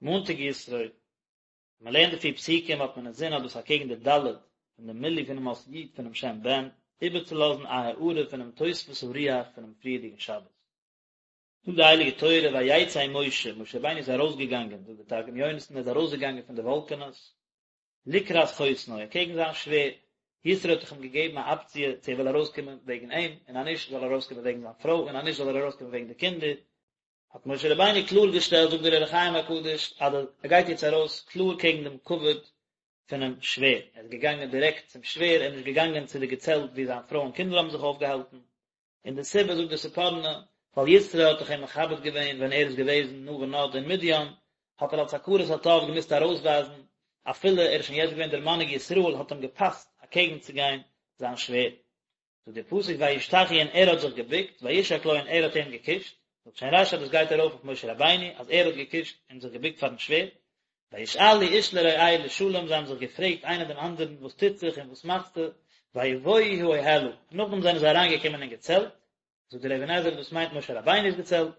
מאנטאג יתרו, ווען מען לערנט די פיר פסוקים האט מען אינזין אז דאס אקעגן די ד' פון די מילוי פונעם אות י' פונעם שם בן, איבערצולאזן א הארה פונעם תוספות הרוח פונעם פריערדיגן שבת. זאגט די הייליגע תורה ויצא משה, משה רבינו איז ארויסגעגאנגען, זאגט דער תרגום יונתן ער איז ארויסגעגאנגען פון די וואלקענעס, לקראת חותנו, אקעגן זיין שווער, יתרו האט דאך אים געגעבן א אפציע צו ער וויל ארויסקומען וועגן אים, און אז נישט זאל ער ארויסקומען וועגן זיין פרוי, און אז נישט זאל ער ארויסקומען וועגן די קינדער, האט משה רבינו קלאר געשטעלט, זאגט דער אור החיים הקדוש, אז ער גייט יעצט ארויס קלאר קעגן דעם כבוד פונעם שווער, ער איז געגאנגען דירעקט צום שווער, ער איז נישט געגאנגען צו די געצעלט וואו זיין פרוי און קינדער האבן זיך אויפגעהאלטן, און די סיבה זאגט דער ספורנו, ווייל יתרו האט דאך אים מכבד געווען ווען ער איז געוועזן נע ונד אין מדין, האט ער אלס הכרת הטוב געמוזט ארויסווייזן, אפילו ער איז שוין יעצט געווען דער מנהיג ישראל האט אים געפאסט אקעגן צו גיין זיין שווער. זאגט דער פסוק וישתחו און ער האט זיך געבוקט, וישק לו און ער האט אים געקושט, זאגט שוין רשי אז דאס גייט ארויף אויף משה רבינו אז ער האט געקושט און זיך געבוקט פארן שווער, וישאלו איש לרעהו לשלום זיי האבן זיך געפרעגט איינער דעם אנדערן וואס טוט זיך און וואס מאכסטו, ויבואו האהלה, נאכדעם זענען זיי אריינגעקומען אין געצעלט, זאגט דער אבן עזרא דאס מיינט משה רבינו'ס געצעלט,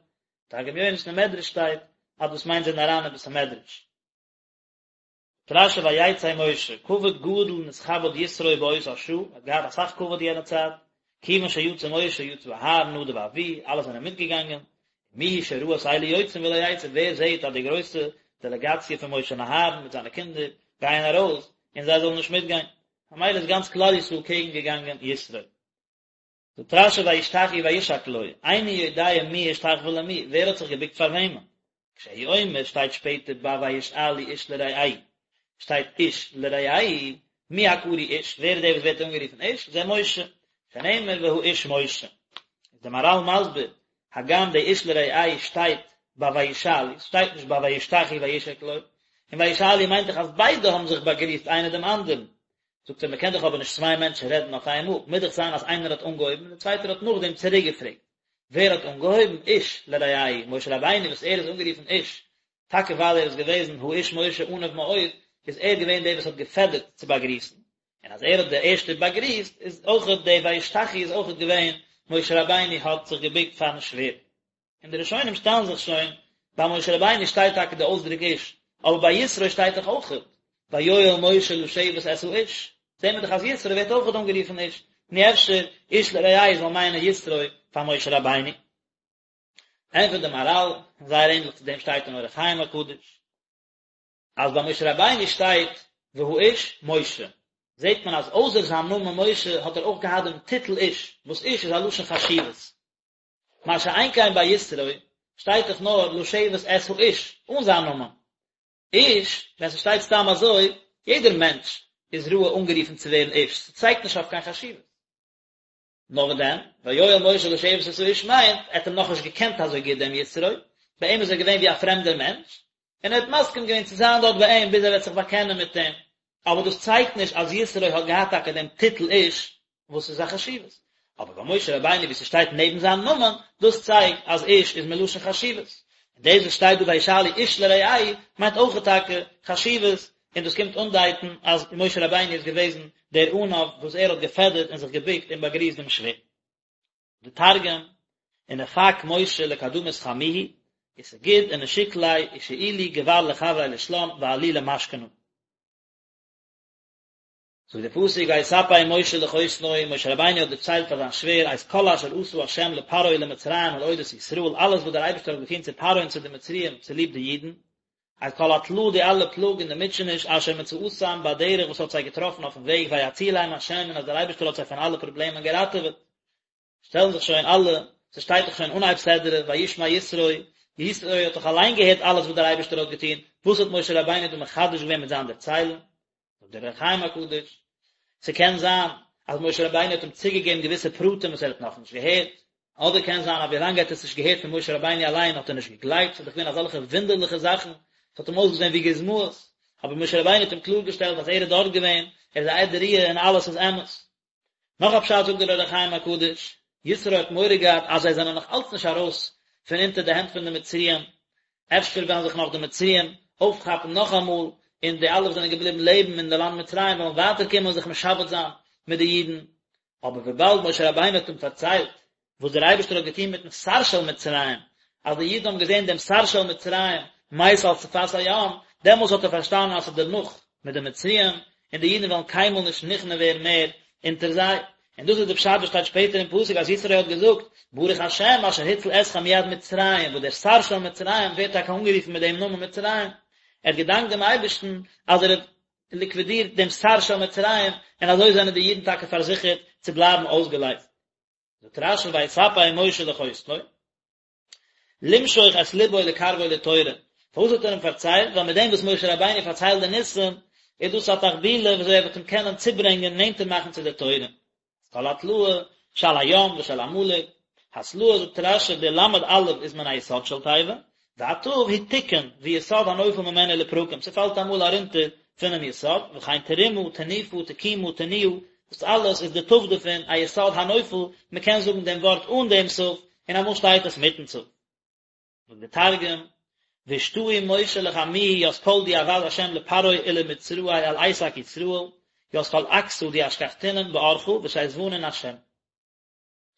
תרגום יונתן אין מדרש שטייט אז דאס מיינט זיי זענען אריין אין בית המדרש. רשי ויצא משה, כבוד גדול נתכבד יתרו באותה שעה, ער האט געהאט אסאך כבוד יענע צייט, כיוון שיצא משה יצא אהרן נדב ואביהוא, אלע זענען מיטגעגאנגען, מי הוא שראה את אלו יוצאים ולא יצא, ווער זעט אז די גרויסע דעלעגאציע פון משה און אהרן מיט זיינע קינדער גייען ארויס, און זיי זאלן נישט מיטגיין, ממילא איז גאנץ כלל ישראל קעגן געגאנגען יתרו. זאגט רשי וישתחו וישק לו, איני יודע מי השתחוה למי, ווער האט זיך געבוקט פאר וועמען? כשהוא אומר שטייט שפעטער ביי וישאלו איש לרעהו, שטייט איש לרעהו, מי הקרוי איש, ווער איז דער וואס ווערט אנגערופן איש? זה משה, שנאמר והאיש משה. איז דער מהרל מסביר, הגם די איש לרעהו שטייט ביי וישאלו, ס'שטייט נישט ביי וישתחו וישק לו, און וישאלו מיינט דאך אז ביידע האבן זיך באגריסט איינער דעם אנדערן, זאגט ער, מ'קען דאך אבער נישט צוויי מענטשן רעדן אויף איינמאל, מוז דאך זיין אז איינער האט אנגעהויבן און דער צווייטער האט נאכדעם צוריק געפרעגט. ווער האט אנגעהויבן? איש לרעהו, משה רבינו וואס ער איז אנגערופן איש, טאקע ווייל ער איז געוועזן האיש משה עניו מאוד, איז ער געווען דער וואס האט געפעדערט צו באגריסן, און אז ער האט דער ערשטער באגריסט, איז אויכעט די וישתחו איז אויכעט געווען משה רבינו האט זיך געבוקט פארן שווער. און די ראשונים שטעלן זיך שוין, ביי משה רבינו שטייט טאקע די אויסדרוק איש, אבער ביי יתרו שטייט דאך אויכעט, ויואל משה לשבת את האיש, זעהן מיר דאך אז יתרו ווערט אויכעט אנגערופן איש, נו אפשר איש לרעהו זאל מיינען יתרו פאר משה רבינו. ענטפערט די מהרל, און זייער ענדליך צו דעם שטייט אין אור החיים הקדוש, אז ביי משה רבינו שטייט והאיש משה, זעט מען אז אויסער זיין נאמען משה האט ער אויך געהאט דעם טיטל איש, וואס איש איז א לשון חשיבות. מה שאין כן ביי יתרו שטייט דאך נאר לשבת את האיש, אן זיין נאמען. איש, ווען ס'שטייט סתם אזוי, יעדער מענטש איז ראוי אנגערופן צו ווערן איש, ס'צייגט נישט אויף קיין חשיבות. נאר וואס דען, ויואל משה לשבת את האיש מיינט, ער האט אים נאכנישט געקענט אזוי גוט דעם יתרו, ביי אים איז ער געווען ווי א פרעמדער מענטש, און ער האט מסכים געווען צו זיין דארט ביי אים ביז ער וועט זיך באקענען מיט אים. אבער דאס צייגט נישט אז יתרו האט געהאט טאקע דעם טיטל איש, וואס איז א חשיבות. אבער ביי משה רבינו ווי ס'שטייט נעבן זיין נאמען, דאס צייגט אז איש איז מלשון חשיבות. און דאס וואס שטייט דא וישאלו איש לרעהו מיינט אויך טאקע חשיבות, און דאס קומט אנדייטן אז משה רבינו איז געוועזן דער עניו וואס ער האט געפעדערט און זיך געבוקט און באגריסט דעם שווער. די תרגום, ונפק משה לקדמות חמוהי, וסגיד ונשיק ליה, ושאילו גבר לחבריה לשלם ועאלי למשכנא. זאגט דער פסוק ויספר משה לחותנו, משה רבינו האט דערציילט פאר זיין שווער את כל אשר עשה ה' לפרעה ולמצרים על אודות ישראל, אלעס וואס דער אייבערשטער האט געטון צו פרעה און צו די מצריים צוליב די אידן, את כל התלאה די אלע פלאג און די מוטשעניש אשר מצאתם בדרך וואס האט זיי געטראפן אויפן וועג ויצילם ה' און אז דער אייבערשטער האט זיי פון אלע פראבלעמען געראטעוועט. שטעלן זיך שוין אלע, ס'שטייט דאך שוין אנהייב סדרה, וישמע יתרו, יתרו האט דאך אליין געהערט אלעס וואס דער אייבערשטער האט געטון, וואס האט משה רבינו דא מחדש געווען מיט זיין דערציילן? זאגט דער אור החיים הקדוש, ס'קען זיין אז משה רבינו האט אים צוגעגעבן געוויסע פרטים וואס ער האט נאכנישט געהערט, אדער קען זיין אז ווילאנג ער האט עס נישט געהערט פון משה רבינו אליין האט ער נישט געגלייבט, ס'איז דאך געווען אזעלכע וואונדערליכע זאכן, ס'האט אים אויסגעזען ווי גוזמאות, אבער משה רבינו האט אים קלאר געשטעלט אז ער איז דארט געווען, ער איז א עד ראיה און אלעס איז אמת. נאך א פשט זאגט דער אור החיים הקדוש, יתרו האט מורא געהאט אז זיי זענען נאך אלץ נישט ארויס פון אונטער די הענט פון די מצריים, אפשר וועלן זיך נאך די מצריים אויפכאפן נאכאמאל, און די אלע וואס זענען געבליבן לעבן אין די לאנד מצרים וועלן ווייטער קומען און זיך משעבד זיין מיט די אידן. אבער וויבאלד משה רבינו האט אים פארציילט וואס דער אייבערשטער האט געטון מיטן שר של מצרים, אז די אידן האבן געזען דעם שר של מצרים מת על שפת הים, דעמאלס האט ער פארשטאנען אז ס'איז דערנאך מיט די מצריים, און די אידן וועלן קיינמאל נישט נכנע ווערן מער אונטער זיי. און דאס איז די פשט וואס שטייט שפעטער אין פסוק אז יתרו האט געזאגט, ברוך השם אשר הציל אתכם מיד מצרים, וואס דער שר של מצרים ווערט טאקע אנגערופן מיט דעם נאמען מצרים, ער האט געדאנקט דעם אייבערשטן אז ער האט ליקווידירט דעם שר של מצרים, און אזוי זענען די אידן טאקע פארזיכערט צו בלייבן אויסגעלייזט. זאגט רשי ויספר משה לחותנו. למשוך את לבו לקרבו לתורה, פארוואס האט ער אים פארציילט? ווייל מיט דעם וואס משה רבינו פארציילט די ניסים, איז דאס א תחבולה ווי אזוי ער וועט אים קענען צוברענגען נענטער מאכן צו דער תורה. כל התלאה שעל הים ושל עמלק, התלאה זאגט רשי די למד אלף איז מן היסוד של תיבה, והתיו היא תיקון ויסוד הנופל ממנו לפרקים, ס'פאלט אמאל ארונטער פונעם יסוד, וכן תרומה, תנופה, תקומה, תנועה, דאס אלעס איז די תיו דערפון א יסוד הנופל, מ'קען זאגן דעם ווארט אן דעם תיו, און אמאל שטייט עס מיטן תיו. זאגט דער תרגום, ואשתעי משה לחמוהי ית כל די עבד ה' לפרעה ולמצראי על עסק ישראל, ית כל עקתא די אשכחתינון באורחא ושיזבנון ה'.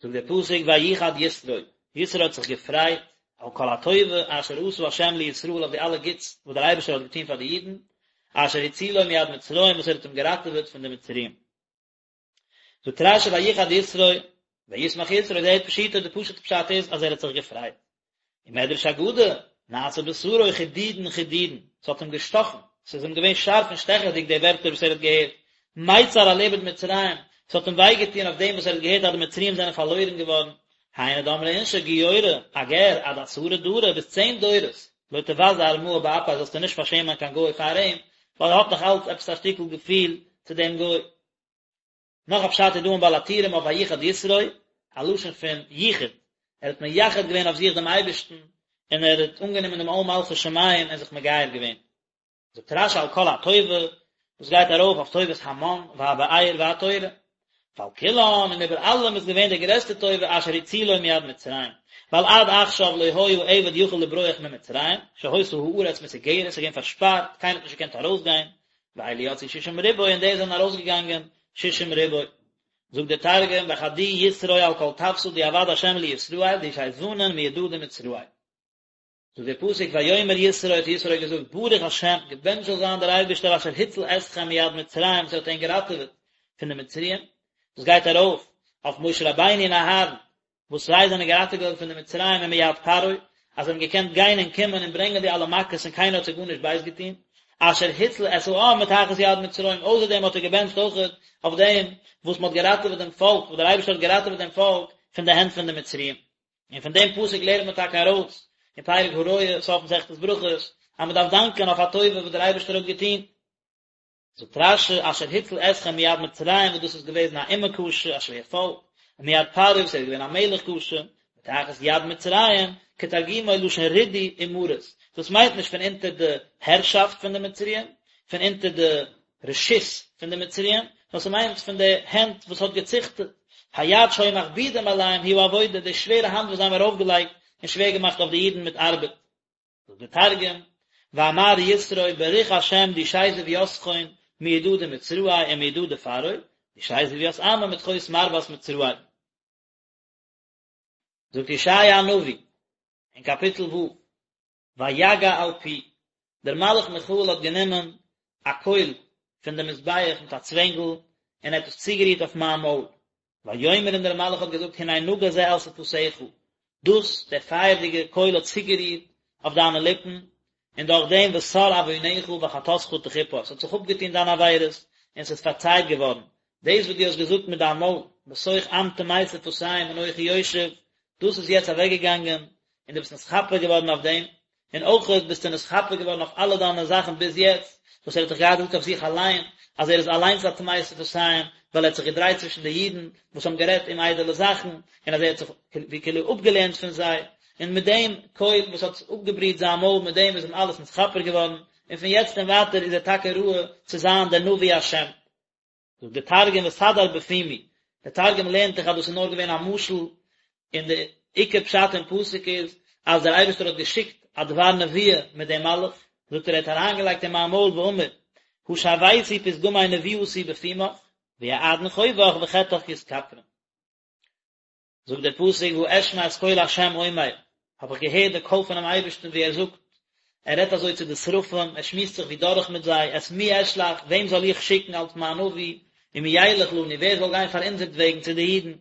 זאגט דער פסוק ויחד יתרו, יתרו האט זיך געפרייט על כל הטובה אשר עשה ה' לישראל אויף די אלע גוטס וואס דער אייבערשטער האט געטון פאר די אידן, אשר הצילו מיד מצרים וואס ער האט אים געראטעוועט פון די מצריים. זאגט רשי ויחד יתרו, וישמח יתרו, זהו פשוטו, די פשוט'ע פשט איז אז ער האט זיך געפרייט. ומדרש אגדה, נעשה בשרו חידודין חידודין, ס'האט אים געשטאכן, ס'איז אים געווען שארף און שטעכעדיג די ווערטער וואס ער האט געהערט, מיצר על איבוד מצרים, ס'האט אים וויי געטון אויף דעם וואס ער האט געהערט אז די מצריים זענען פארלוירן געווארן, היינו דאמרי אינשי גיורא, א גר, עד עשרה דרי, ביז צען דורות, לא תבזה ארמאה באפיה זאלסטו נישט פארשעמען קיין גוי פאר אים, ווייל ער האט נאך אלץ עפעס א שטיקל געפיל צו דעם גוי. נאך א פשט איז דא אין בעל הטורים אויף ויחד יתרו, א לשון פון יחוד, ער האט מייחד געווען אויף זיך דעם אייבערשטן, און ער האט אנגענומען דעם עול מלכות שמים און זיך מגייר געווען. זאגט רשי על כל הטובה, דאס גייט ארויף אויף טובת המן והבאר והתורה. ועל כולן, און איבער אלעם איז געווען די גרעסטע טובה אשר הצילו מיד מצרים, ווייל עד עכשיו לא היה עבד יכול לברוח ממצרים, שהיתה הארץ מסוגרת, ס'איז געווען פארשפארט, קיינער האט נישט געקענט ארויסגיין, ואלו יצאו שישים ריבוא און די זענען ארויסגעגאנגען שישים ריבוא. זאגט דער תרגום וחדי יתרו על כל טבתא די עבד השם לישראל די שיזבנון מידא דמצראי. זאגט דער פסוק ויאמר יתרו האט יתרו געזאגט ברוך השם געבענטשט זאל זיין דער אייבערשטער אשר הציל אתכם מיד מצרים וואס ער האט ענק געראטעוועט פון די מצריים, דאס גייט ארויף אויף משה רבינו און אהרן וואס זיי זענען געראטעוועט געווארן פון די מצריים און מיד פרעה, אז זיי האבן געקענט גיין און קומען און ברענגען די אלע מכות און קיינער האט זיי גארנישט בייז געטון, אשר הציל את העם מתחת יד מצרים, אויסער דעם האט ער געבענטשט אויכעט אויף דעם וואס מען האט געראטעוועט דעם פאלק, וואס דער אייבערשטער האט געראטעוועט דעם פאלק פון די הענט פון די מצריים. און פון דעם פסוק לערנט מען טאקע ארויס אין פרק הרואה, סוף מסכת ברכות, אז מען דארף דאנקען אויף א טובה וואס דער אייבערשטער האט געטון. זאגט רשי, אשר הציל אתכם מיד מצרים וואס דאס איז געוועזן א אומה קשה, א שווער פאלק, ומיד פרעה וואס ער איז געווען א מלך קשה, מתחת יד מצרים, כתרגומו לשון רידוי ומרות, דאס מיינט נישט פון אונטער די הערשאפט פון די מצריים, פון אונטער די רשות פון די מצריים, נאר ס'מיינט פון די הענט וואס האט געציכטעט, היד שהיו מכבידים עליהם היא העבודה, די שווערע האנט וואס זיי האבן ארויפגעלייגט און שווער געמאכט אויף די אידן מיט ארבעט. זאגט דער תרגום, ואמר יתרו בריך השם די שיזב יתכון מידא דמצראי ומידא דפרעה, די שיזב ית עמא מתחות מרוות מצראי. זאגט ישעיה הנביא אין קאפיטל ו', ויגע אל פי, דער מלאך מיכאל האט גענומען א קויל פון דעם מזבח מיט א צווענגל און ער האט עס צוגערירט אויף מיין מויל, ויאמר און דער מלאך האט געזאגט הנה נגע זה על שפתיך, דאס, דער פייערדיגער קויל האט צוגערירט אויף דיינע ליפן, און דורך דעם וסר עוונך וחטאתך תכופר, עס האט זיך אפגעטון דיינע עבירות און עס איז פארצייט געווארן, דאס וואס דו האסט געזאגט מיט דיין מויל, בתוך עם טמא שפתים אנכי יושב, דאס איז יעצט אוועקגעגאנגען, און דו ביסט נתכפר געווארן אויף דעם, און אויך ביסטו נתכפר געווארן אויף אלע דיינע זאכן ביז יעצט, וואס ער האט דאך געהאט געזאגט אויף זיך אליין, אז ער איז אליינס א טמא שפתים, ווייל ער האט זיך געדרייט צווישן די אידן וואס האבן גערעדט אומאיידעלע זאכן, און אז ער האט זיך ווי כאילו אפגעלערנט פון זיי, און מיט דעם קויל וואס האט אפגעבריט זיין מויל, מיט דעם איז אים אלעס נתכפר געווארן, און פון יעצט און ווייטער איז ער טאקע ראוי צו זיין דער נביא השם. זאגט דער תרגום וסדר בפומי, דער תרגום לערנט דאך אז דאס איז נאר געווען א משל, און די עיקר פשט אין פסוק איז אז דער אייבערשטער האט געשיקט א דבר נבואה מיט דעם מלאך, זאגט ער ער האט אריינגעלייגט אין מיין מויל ואמר, השוויתי פתגמי נבואתי בפומך, ויעדון חובך וחטאך יתכפרון. זאגט דער פסוק ואשמע את קול ה' אומר, האב איך געהערט די קול פונעם אייבערשטן ווי ער זאגט. ער רעדט אזוי צו די שרפים, ער שמועסט זיך ווי דורך מיט זיי, את מי אשלח, וועם זאל איך שיקן אלס מיין נביא, ומי ילך לנו, ווער זאל גיין פאר אונזערט וועגן צו די אידן?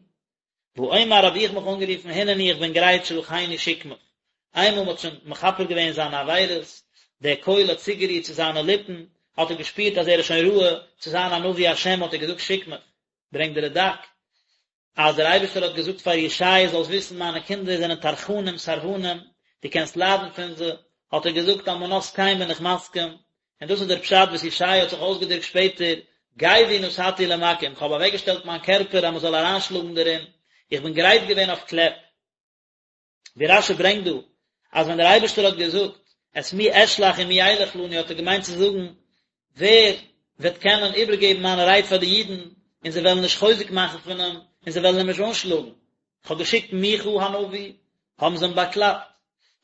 ואומר האב איך מיך אנגערופן הנני איך בין גרייט שלחני שיק מיך. איינמאל מ'האט שוין מכפר געווען זיינע עבירות, דער קול האט צוגערירט צו זיינע ליפן, האט ער געשפירט אז ער איז שוין ראוי צו זיין א נביא השם האט ער געזאגט שיק מיך. ברענגט דער רד"ק אז דער אייבערשטער האט געזאגט פאר ישעי' זאלסט וויסן מיינע קינדער זענען טרחנים סרבנים, דו קענסט ליידן פון זיי, האט ער געזאגט על מנת כן בין איך מסכים, און דאס איז דער פשט וואס ישעי' האט זיך אויסגעדרוקט שפעטער, גווי נתתי למכים, כ'האב אוועקגעשטעלט מיין קערפער אז מען זאל אריינשלאגן דערין, איך בין גרייט געווען אויף קלעפ. ווי רש"י ברענגט דא, אז ווען דער אייבערשטער האט געזאגט, את מי אשלח ומי ילך לנו האט ער געמיינט צו זאגן, ווער וועט קענען איבערגעבן מיינע רייד פאר די אידן, און זיי וועלן נישט חוזק מאכן פון אים, און זיי וועלן אים נישט אנשלאגן. כ'האב געשיקט מיכה הנביא, האבן זיי אים באקלאפט.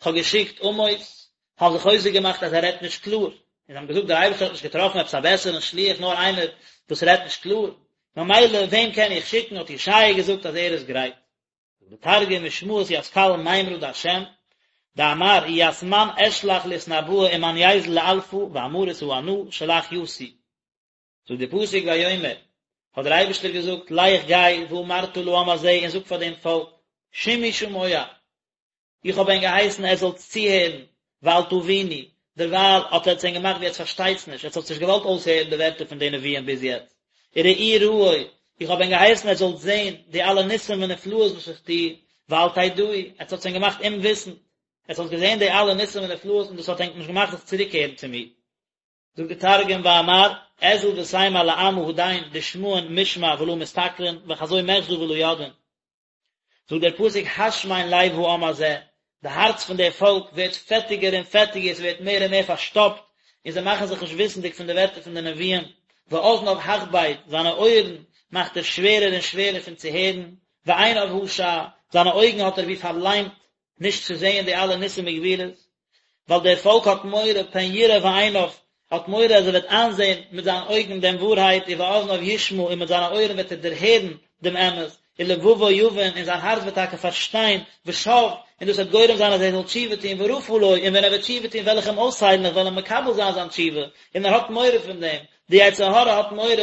כ'האב געשיקט עמוס, האבן זיי חוזק געמאכט אז ער רעדט נישט קלאר, און זיי האבן געזאגט דער אייבערשטער האט נישט געטראפן עפעס א בעסערן שליח נאר איינער וואס רעדט נישט קלאר, ממילא וועם קען איך שיקן, האט ישעיה געזאגט אז ער איז גרייט. זאגט דער תרגום ושמעית ית קל מימרא דהשם, דאמר ית מן אשלח לאתנבאא ומאן ייזל לאלפא ואמרית הא אנא שלח יתי. זאגט דער פסוק ויאמר, האט דער אייבערשטער געזאגט, לך גיי ואמרת לעם הזה און זאג פאר דעם פאלק, שמעו שמוע, איך האב ענק געהייסן עטס זאלטס צוהערן, ואל תבינו, דערווייל האט עטס ענק געמאכט ווי עטס פארשטייטס נישט, עטס האטס נישט געוואלט אויסהערן די ווערטער פון די נביאים ביז יעצט, וראו ראו, איך האב ענק געהייסן עטס זאלטס זען די אלע ניסים ונפלאות וואס איך טו, ואל תדעו, עטס האטס ענק געמאכט אומוויסנד, עטס האטס געזען די אלע ניסים ונפלאות און דאס האט ענק נישט געמאכט זיך צוריקקערן צו מיר. זאגט די תרגום ואמר, אזיל ותימר לעמא הדין דשמעון משמע ולא מסתכלין וחזו מחזא ולא ידעין. זאגט דער פסוק השמן לב העם הזה, די הארץ פון דער פאלק ווערט פעטיגער און פעטיגער, עס ווערט מער און מער פארשטאפט, און זיי מאכן זיך נישט וויסנדיג פון די ווערטער פון די נביאים, ואזניו הכבד, זיינע אויערן מאכט ער שווערער און שווערער פון צו הערן, ועיניו השע, זיינע אויגן האט ער ווי פארליימט, נישט צו זען די אלע ניסים וגבורות, ווייל דער פאלק האט מורא, פן יראה בעיניו, האט מורא אז ער וועט איינזען מיט זיינע אויגן דעם ווארהייט, ובאזניו ישמע, און מיט זיינע אויערן וועט ער דערהערן דעם אמת, ולבבו יבין, און זיין הארץ וועט טאקע פארשטיין, ושב, און דאס וועט גורם זיין אז ער זאל תשובה טון, ורפא לו, און ווען ער וועט תשובה טון וועל איך אים אויסהיילן, איך וועל אים מקבל זיין זיין תשובה, און ער האט מורא פון דעם, די יצר הרע האט מורא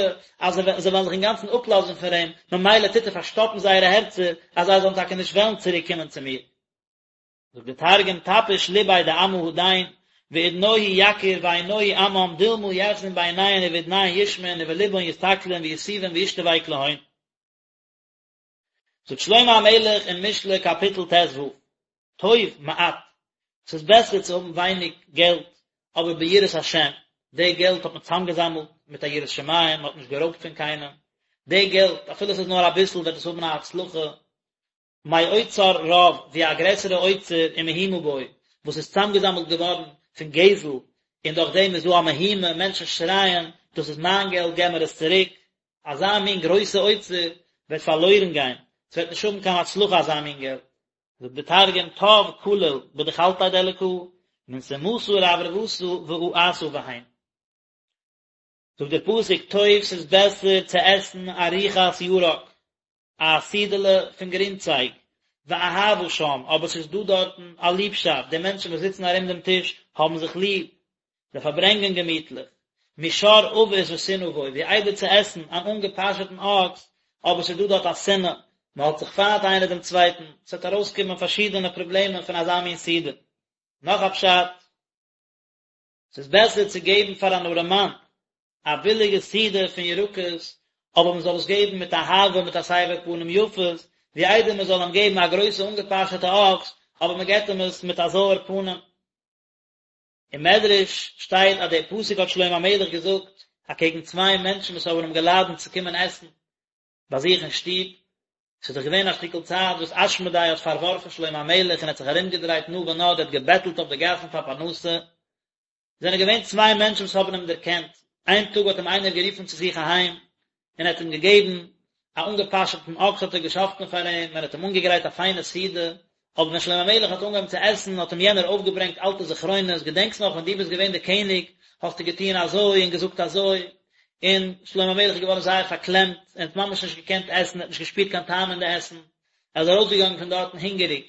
אז זיי וועלן זיך אינגאנצן אפלאזן פון אים, ממילא טוט ער פארשטאפן זייערע הערצער אז זיי זאלן טאקע נישט וועלן צוריק קומען צו מיר. זאגט דער תרגום תפיש לביה דעמא הדין ואדנוהי יקיר ועינוהי עמם דלמא יחזון בעיניהון ובאדניהון ישמעון ובלבהון יסתכלון ויתובון וישתבק להון. זאגט שלמה המלך אין משלי קאפיטל ט"ו, טוב מעט, ס'איז בעסער צו האבן ווייניג געלט אבער ביראת השם, די געלט האט מען צוזאמגעזאמלט מיט א יראת שמים, מען האט נישט גערויבט פון קיינעם, די געלט אפילו ס'איז נאר אביסל וועט עס האבן א הצלחה, מאוצר רב, ווי א גרעסערע אוצר ומהומה בו, וואס איז צוזאמגעזאמלט געווארן פון גזל, און דורך דעם איז דא א מהומה, מענטשן שרייען, דאס איז מיין געלט, געב מיר עס צוריק, אזא מין גרויסע אוצר וועט פארלוירן גיין, ס'וועט נישט האבן קיין הצלחה אזא מין געלט. זאגט די תרגום, טב קליל בדחלתיה דאלקא, מן סומתא ורברבתא ואעתא בהון. זאגט דער פסוק, טוב ס'איז בעסער צו עסן ארוחת ירק, א סעודה'לע פון גרינצייג, ואהבה שם, אבער ס'איז דא דארטן א ליבשאפט, די מענטשן וואס זיצן ארום דעם טיש האבן זיך ליב, זיי פארברענגען געמיטליך, משור אבוס ושנאה בו, ווי איידער צו עסן אן אנגעפאשעטן אקס, אבער ס'איז דא דארט א שנאה, מען האט זיך פיינט איינער דעם צווייטן, ס'וועט ארויסקומען פארשידענע פראבלעמען פון אזא מין סעודה. נאך א פשט. ס'איז בעסער צו געבן פאר אן ארעמאן א ביליגע סעודה פון ירקות, אבער מען זאל עס געבן מיט אהבה מיט א סבר פנים יפות, ווי איידער מען זאל אים געבן א גרויסע אנגעפאשעטע אקס, אבער מען געבט אים עס מיט א זויער פנים. אין מדרש שטייט אז דער פסוק האט שלמה המלך געזאגט אקעגן צוויי מענטשן וואס האבן אים געלאדענט צו קומען עסן ביי זיך אין שטוב, ס'איז דאך געווען א שטיקל צייט וואס אשמדאי האט פארווארפן שלמה המלך און האט זיך ארומגעדרייט נע ונד, ער האט געבעטלט אויף די גאסן פאר פרנסה, זענען געווען צוויי מענטשן וואס האבן אים דערקענט, איין טאג האט אים איינער גערופן צו זיך אהיים, און ער האט אים געגעבן א אנגעפאשעטן אקס האט ער געשאכטן פאר אים, און ער האט אים אנגעגרייט א פיינע סעודה, אבער ווען שלמה המלך האט אנגעהויבן צו עסן האט אים יענער אויפגעברענגט אלטע זכרונות, געדענקסט נאך ווען דו ביסט געווען דער קעניג האסטו געטון אזוי און געזאגט אזוי, און שלמה המלך איז געווארן זייער פארקלעמט, ער האט ממש נישט געקענט עסן, ער האט נישט געשפירט קיין טעם אין די עסן, ער איז ארויסגעגאנגען פון דארטן הונגעריג.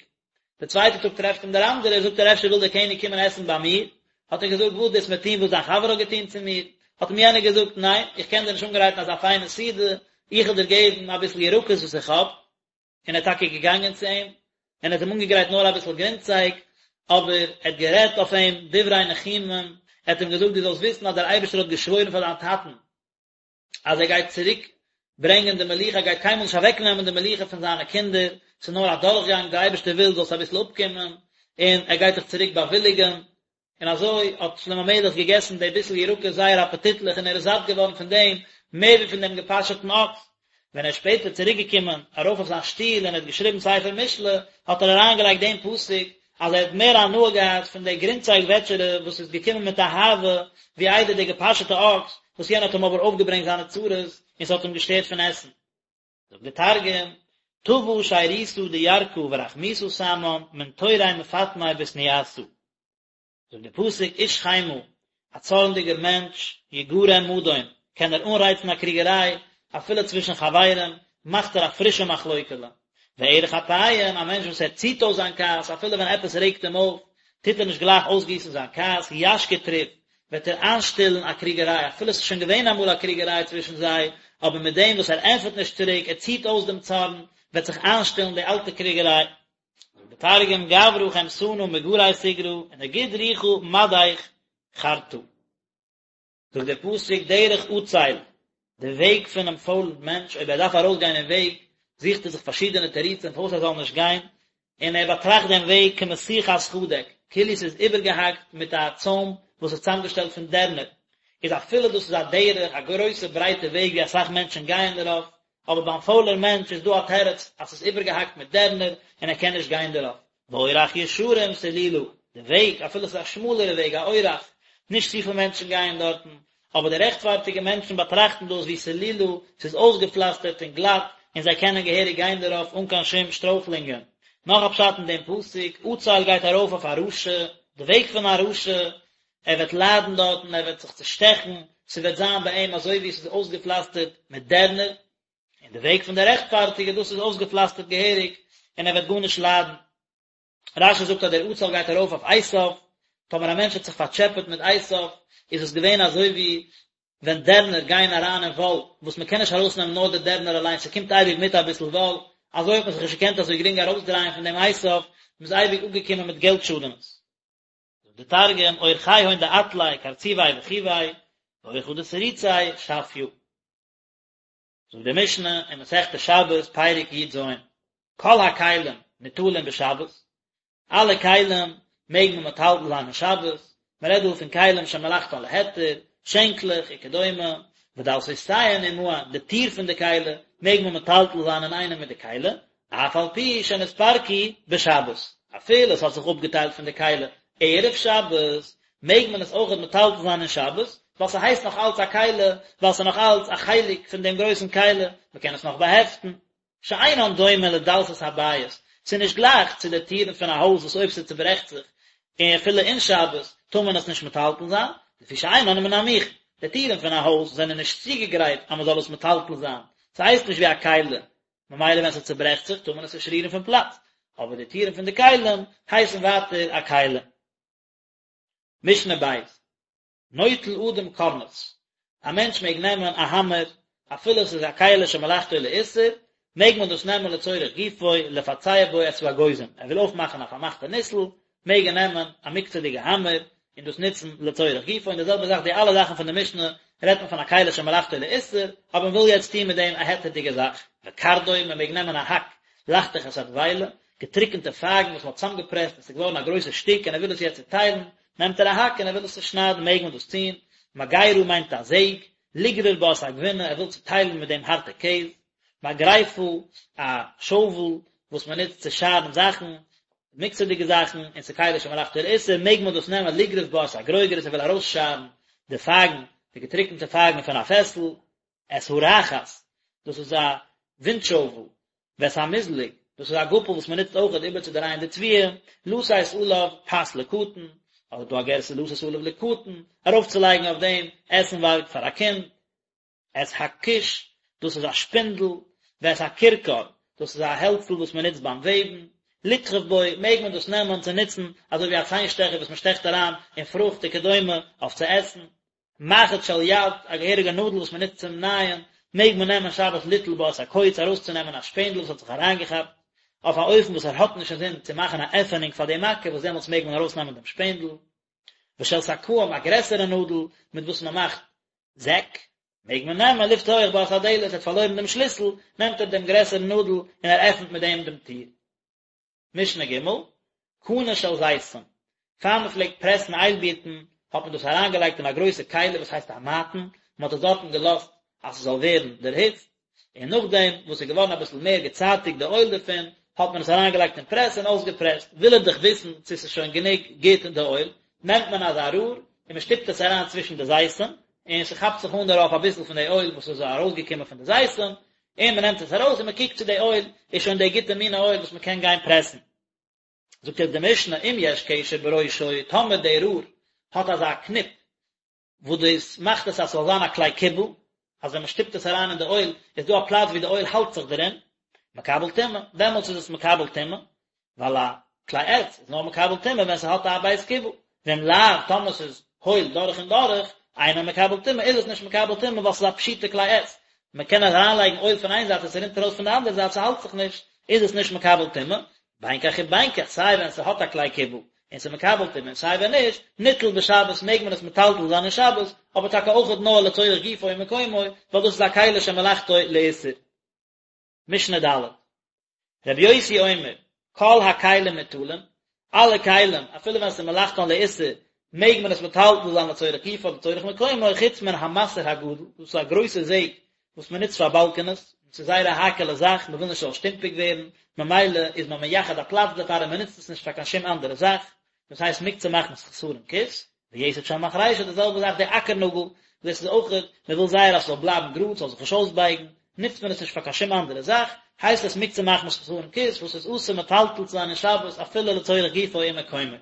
די צווייטע טאג טרעפט אים דער אנדערער, זאגט ער אפשר וויל דער קעניג קומען עסן ביי מיר, האט ער געזאגט, וואס דו וועסט מיר טון וואס דיין חבר האט געטון צו מיר? האט אים יענער געזאגט, ניין, איך קען דיר נישט אנגרייטן אזא פיינע סעודה, איך וועל דיר געבן אביסל ירקות וואס איך האב. און ער איז טאקע געגאנגען צו אים, און ער האט אים אנגעגרייט נאר אביסל גרינצייג, אבער ער האט גערעדט אויף אים דברי ניחומים, ער האט אים געזאגט, דו זאלסט וויסן אז דער אייבערשטער האט געשוואוירן פאר דיין טאטן, אז ער גייט צוריק ברענגען די מלוכה, ער גייט קיינמאל נישט אוועק נעמען די מלוכה פון זיינע קינדער, ס'איז נאר א דורכגאנג, דער אייבערשטער וויל זאלסט אביסל אפקומען, און ער גייט דיך צוריק באוויליגען, און אזוי האט שלמה המלך געגעסן די ביסל ירקות זייער אפעטיטליך און ער איז זאט געווארן פון דעם מער ווי פון דעם געפאשעטן אקס. ווען ער איז שפעטער צוריק געקומען ארויף אויף זיין שטול און ער האט געשריבן ספר משלי, האט ער אריינגעלייגט דעם פסוק אז ער האט מער הנאה געהאט פון די גרינצייג וועטשערע וואס איז געקומען מיט אהבה, ווי איידער די געפאשעטע אקס, וואס יענער האט אים אבער אויפגעברענגט זיינע צרות און ס'האט אים געשטערט פון עסן. זאגט דער תרגום, טבא שירותא דירקא ורחמיתא סמן מן תורי מפטמי בתניאתא. זאגט דער פסוק איש חמה, א צארנדיגער מענטש, יגרם מדון, קען ער אנרייצן א קריגעריי, אפילו צווישן חברים, מאכט ער א פרישע מחלוקה'לע. וארך אפים, א מענטש וואס ער ציט אויס זיין כעס, אפילו ווען עפעס רעגט אים אויף, טוט ער נישט גלייך אויסגיסן זיין כעס, ישקיט ריב, וועט ער איינשטילן א קריגעריי, אפילו עס איז שוין געווען אמאל א קריגעריי צווישן זיי, אבער מיט דעם וואס ער ענטפערט נישט צוריק, ער ציט אויס דעם צארן, וועט זיך איינשטילן די אלטע קריגעריי. זאגט דער תרגום, גברא חמתנא מגרי תיגרא, ונגיד רוחא מדך חרתא. זאגט דער פסוק דרך עצל, די וועג פונעם פוילן מענטש, אויב ער דארף ארויסגיין אין וועג, זוכט ער זיך פארשידענע תירוצים פארוואס ער זאל נישט גיין, און ער באטראכט דעם וועג כמשוכת חדק, כאילו ס'איז איבערגעהאקט מיט א צוים וואס איז צוזאמגעשטעלט פון דערנער, איז אפילו דאס איז א דרך, א גרויסע ברייטע וועג ווי אסאך מענטשן גייען דערויף, אבער ביים פוילער מענטש איז דא א תירוץ אז ס'איז איבערגעהאקט מיט דערנער און ער קען נישט גיין דערויף. ואורח ישרים סלולה, די וועג, אפילו ס'איז א שמאלערע וועג, א אורח, נישט צופיל מענטשן גייען דארטן, אבער די רעכטפארטיגע מענטשן באטראכטן דאס ווי סלולה, ס'איז אויסגעפלאסטערט און גלאט, און זיי קענען געהעריג גיין דערויף אן קיין שום שטרויכלונגען. נאך א פשט אין דעם פסוק, עצל גייט ארויף אויף א רשע, די וועג פון א רשע, ער וועט ליידן דארטן, ער וועט זיך צושטעכן, ס'וועט זיין ביי אים אזוי ווי עס איז אויסגעפלאסטערט מיט דערנער, און די וועג פון די רעכטפארטיגע, דאס איז אויסגעפלאסטערט געהעריג, און ער וועט גארנישט ליידן. רש"י זאגט אז דער עצל גייט ארויף אויף עשיו, טאמער א מענטש האט זיך פארטשעפעט מיט עשיו, איז עס געווען אזוי ווי ווען דערנער גייען אריין אין וואל, וואס מען קען נישט ארויסנעמען נאר די דערנער אליין, ס'קומט אייביג מיט אביסל וואל, אזוי האט מען זיך נישט געקענט אזוי גרינג ארויסדרייען פון דעם עשיו, מען איז אייביג אפגעקומען מיט געלט שאדענעס. זאגט דער תרגום, אורחיהון דעטלי קרצובי וחיוי, ואורחא דתריצי שפיא. זאגט די משנה אין מסכת שבת פרק י"ז, כל הכלים ניטלין בשבת, אלע כלים מעג מען מטלטל זיין אין שבת, מען רעדט דא פון כלים שמלאכתן להיתר, שענקלעך וכדומה, ודלתותיהן עמהן, די טיר פון די כלי מעג מען מטלטל זיין אינאיינעם מיט די כלי, אף על פי שנתפרקו בשבת, אפילו עס האט זיך אפגעטיילט פון די כלי ערב שבת, מעג מען עס אויכעט מטלטל זיין אין שבת, ווייל ס'הייסט נאך אלץ א כלי, ווייל ס'איז נאך אלץ א חלק פון דעם גרויסן כלי, מ'קען עס נאך באהעפטן. שאינן דומה לדלתות הבית, ס'איז נישט גלייך צו די טירן פון א הויז וואס אויב ס'צוברעכט זיך, און אפילו אין שבת, טאר מען עס נישט מטלטל זיין, לפי שאינן מן המוכן, די טירן פון א הויז זענען נישט צוגעגרייט אז מ'זאל עס מטלטל זיין, ס'הייסט נישט ווי א כלי, ממילא ווען ס'צוברעכט זיך טאר מען עס נישט רירן פון פלאץ, אבער די טירן פון די כלים הייסן ווייטער א כלי. משנה ב', נוטל אדם קורנס, א מענטש מעג נעמען א האמער אפילו עס איז א כלי שמלאכתו לאיסור, מעג מען דאס נעמען לצורך גופו, לפצע בו את האגוזים, ער וויל אויפמאכן א פארמאכטע ניסל, מעג ער נעמען א מוקצה'דיגע האמער און דאס נוצן לצורך גופו, און די זעלבע זאך די אלע זאכן פון די משנה רעדט מען פון א כלי שמלאכתו לאיסור, אבער מען וויל יעצט טון מיט דעם א היתר'דיגע זאך, וקרדום, מען מעג נעמען א האק, לחתוך את הדבילה, געטריקענטע פייגן וואס מען האט צאמגעפרעסט און ס'איז געווארן א גרויסע שטיק און ער וויל עס יעצט צוטיילן, נעמט ער א האק און ער וויל עס צושניידן מעג מען דאס טון, מגירה מיינט א זעג, לגרור בה את הגבינה, ער וויל צוטיילן מיט דעם הארטע קעז, מגרפה, א שאוול וואס מען נוצט צו שארן זאכן, מוקצה'דיגע זאכן, און ס'איז כלי שמלאכתו לאיסור, מעג מען דאס נעמען לגרוף בה את הגרוגרת, ער וויל ארויסשארן די פייגן, די געטריקענטע פייגן פון א פעסל, את הרחת, דאס איז א ווינט-שאוול, ואת המזלג, דאס איז א גאפל וואס מען נוצט אויכעט איבערצודרייען די תבואה, לתת עליו פת לקטן, אדער דא א גירסא לתת עליו לקטן, ארויפצולייגן אויף דעם עסנווארג פאר א קינד. את הכוש, דאס איז א שפינדל, ואת הכרכר, דאס איז א העלצל וואס מען נוצט ביים וועבן, לתחוב בו, מעג מען דאס נעמען צו נוצן אזוי ווי א ציין שטעכער וואס מען שטעכט אריין אין פרוכט וכדומה אויף צו עסן. מחט של יד, א געהעריגע נאדל וואס מען נוצט צום נייען, מעג מען נעמען שבת ליטול בה את הקוץ ארויסצונעמען א שפענדל וואס האט זיך אריינגעכאפט, אויף א אופן וואס ער האט נישט אינזין צו מאכן א עפענונג פאר די מכה וואס דעמאלטס מעג מען ארויסנעמען דעם שפענדל. ושל שקאים, א גרעסערע נאדל מיט וואס מען מאכט זעק, מעג מען נעמען לפתוח בה את הדלת, ער האט פארלוירן דעם שליסל, נעמט ער דעם גרעסערן נאדל און ער עפנט מיט דעם דעם טיר. משנה ג', קנה של זיתים, פאר מען פלעגט פרעסן איילבירטן האט מען דאס אריינגעלייגט אין א גרויסע כלי וואס הייסט א מעטן, מען האט עס דארטן געלאזט אז ס'זאל ווערן דערהיצט, און נאכדעם וואס ס'איז געווארן אביסל מער געצייטיגט די אויל דערפון, האט מען עס אריינגעלייגט אין פרעס און אויסגעפרעסט, וויל ער דאך וויסן צו ס'איז שוין גענוג גוט די אויל, נעמט מען אזא רור און מען שטופט עס אריין צווישן די זיתים, און ס'כאפט זיך אן דערויף אביסל פון די אויל וואס איז ארויסגעקומען פון די זיתים, און מען נעמט עס ארויס און מען קוקט צו די אויל איז שוין די גוטע מינע אויל וואס מען קען גיין פרעסן. זאגט יעצט די משנה אם יש קשר בראשו, טאמער די רור האט אזא קניפ וואס דאס מאכט עס אז ס'זאל זיין א כלי קיבול, אז ווען מען שטופט עס אריין אין די אויל איז דא א פלאץ ווי די אויל האלט זיך דערין, מקבל טומאה, דעמאלטס איז עס מקבל טומאה, ווייל א כלי עץ איז נאר מקבל טומאה ווען ס'האט א בית קיבול, ואם לאו, טאמער ס'איז הויל דורך און דורך, אינו מקבל טומאה, איז עס נישט מקבל טומאה ווייל ס'איז א פשוטע כלי עץ, מען קען אריינלייגן אויל פון איין זייט און ס'רינט ארויס פון די אנדערע זייט ס'האלט זיך נישט, איז עס נישט מקבל טומאה, בין כך ובין כך, סיי ווען ס'האט א כלי קיבול און ס'איז מקבל טומאה און סיי ווען נישט, ניטל בשבת מעג מען עס מטלטל זיין אין שבת, אבער טאקע אויכעט נאר לצורך גופו ומקומו, ווייל דאס איז א כלי שמלאכתו לאיסור. משנה ד'. רבי יוסי אומר, כל הכלים ניטלין, אלע כלים, אפילו ווען ס'איז מלאכתן לאיסור, מעג מען עס מטלטל זיין לצורך גופו אדער לצורך מקומו, חוץ מן המסר הגדול, דאס איז א גרויסע זעג וואס מען נוצט פאר באלקענעס, און ס'איז זייער א האקעלע זאך, מען וויל נישט ס'זאל שטומפיג ווערן, ממילא איז מען מייחד א פלאץ דערפאר און מען נוצט עס נישט פאר קיין שום אנדערע זאך, דאס הייסט מוקצה מחמת חסרון כיס, ויתד של מחרישה די זעלבע זאך די אקער נאגל, דאס איז אויך, מען וויל זייער אז ס'זאל בלייבן גראד, ס'זאל זיך נישט אויסבייגן, נוצט מען עס נישט פאר קיין שום אנדערע זאך, הייסט עס מוקצה מחמת חסרון כיס, וואס איז אסור מטלטל צו זיין אין שבת אפילו לצורך גופו ומקומו.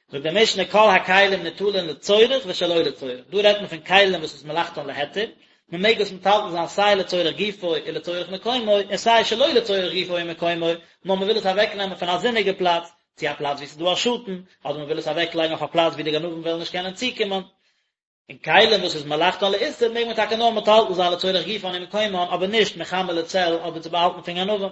זאגט די משנה כל הכלים ניטלין לצורך ושלא לצורך, דא רעדט מען פון כלים וואס איז מלאכתן להיתר, מען מעג עס מטלטל זיין סיי לצורך גופו און לצורך מקומו, און סיי שלא לצורך גופו ומקומו, נאר מען וויל עס אוועקנעמען פון א זוניגע פלאץ, צו א פלאץ וואו ס'איז דא א שאטן, אדער מען וויל עס אוועקלייגן אויף א פלאץ וואו די גנבים וועלן נישט קענען צוקומען. און כלים וואס איז מלאכתן לאיסור מעג מען טאקע נאר מטלטל זיין לצורך גופן ומקומן, אבער נישט מחמה לצל אדער צו באהאלטן פון גנבים. ר'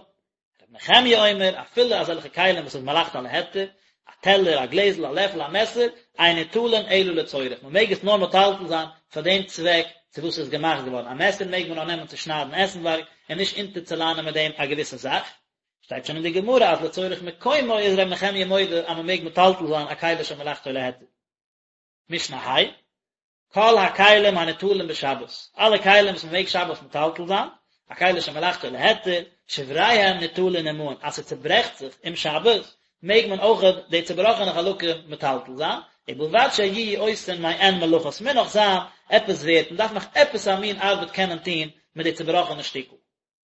נחמיה אומר, אפילו אזעלכע כלים וואס איז מלאכתן להיתר, א טעלער, א גלעזל, א לעפל, א מעסער, אין ניטלין אלא לצורך, מען מעג עס נאר מטלטל זיין פאר דעם צוועק צו וואס עס איז געמאכט געווארן, א מעסער מעג מען נאר נעמען צו שניידן עסנווארג, און נישט אונטערצוליינען מיט דעם א געוויסע זאך. שטייט שוין אין די גמרא אז לצורך מקומו איז ר' נחמיה מודה אז מען מעג מטלטל זיין א כלי שמלאכתו להיתר. משנה ה', כל הכלים הניטלים בשבת, אלע כלים וואס מען מעג שבת מטלטל זיין, א כלי שמלאכתו להיתר, שבריהם ניטלין עמהן, אז ס'צוברעכט זיך אום שבת, מעג מען אויך די צובראכענע חלקים מטלטל זיין, ובלבד שיהיו עושין מעין מלאכה, ס'מוז נאך זיין עפעס ווערט, מ'דארף נאך עפעס א מין ארבעט קענען טון מיט די צובראכענע שטיקל.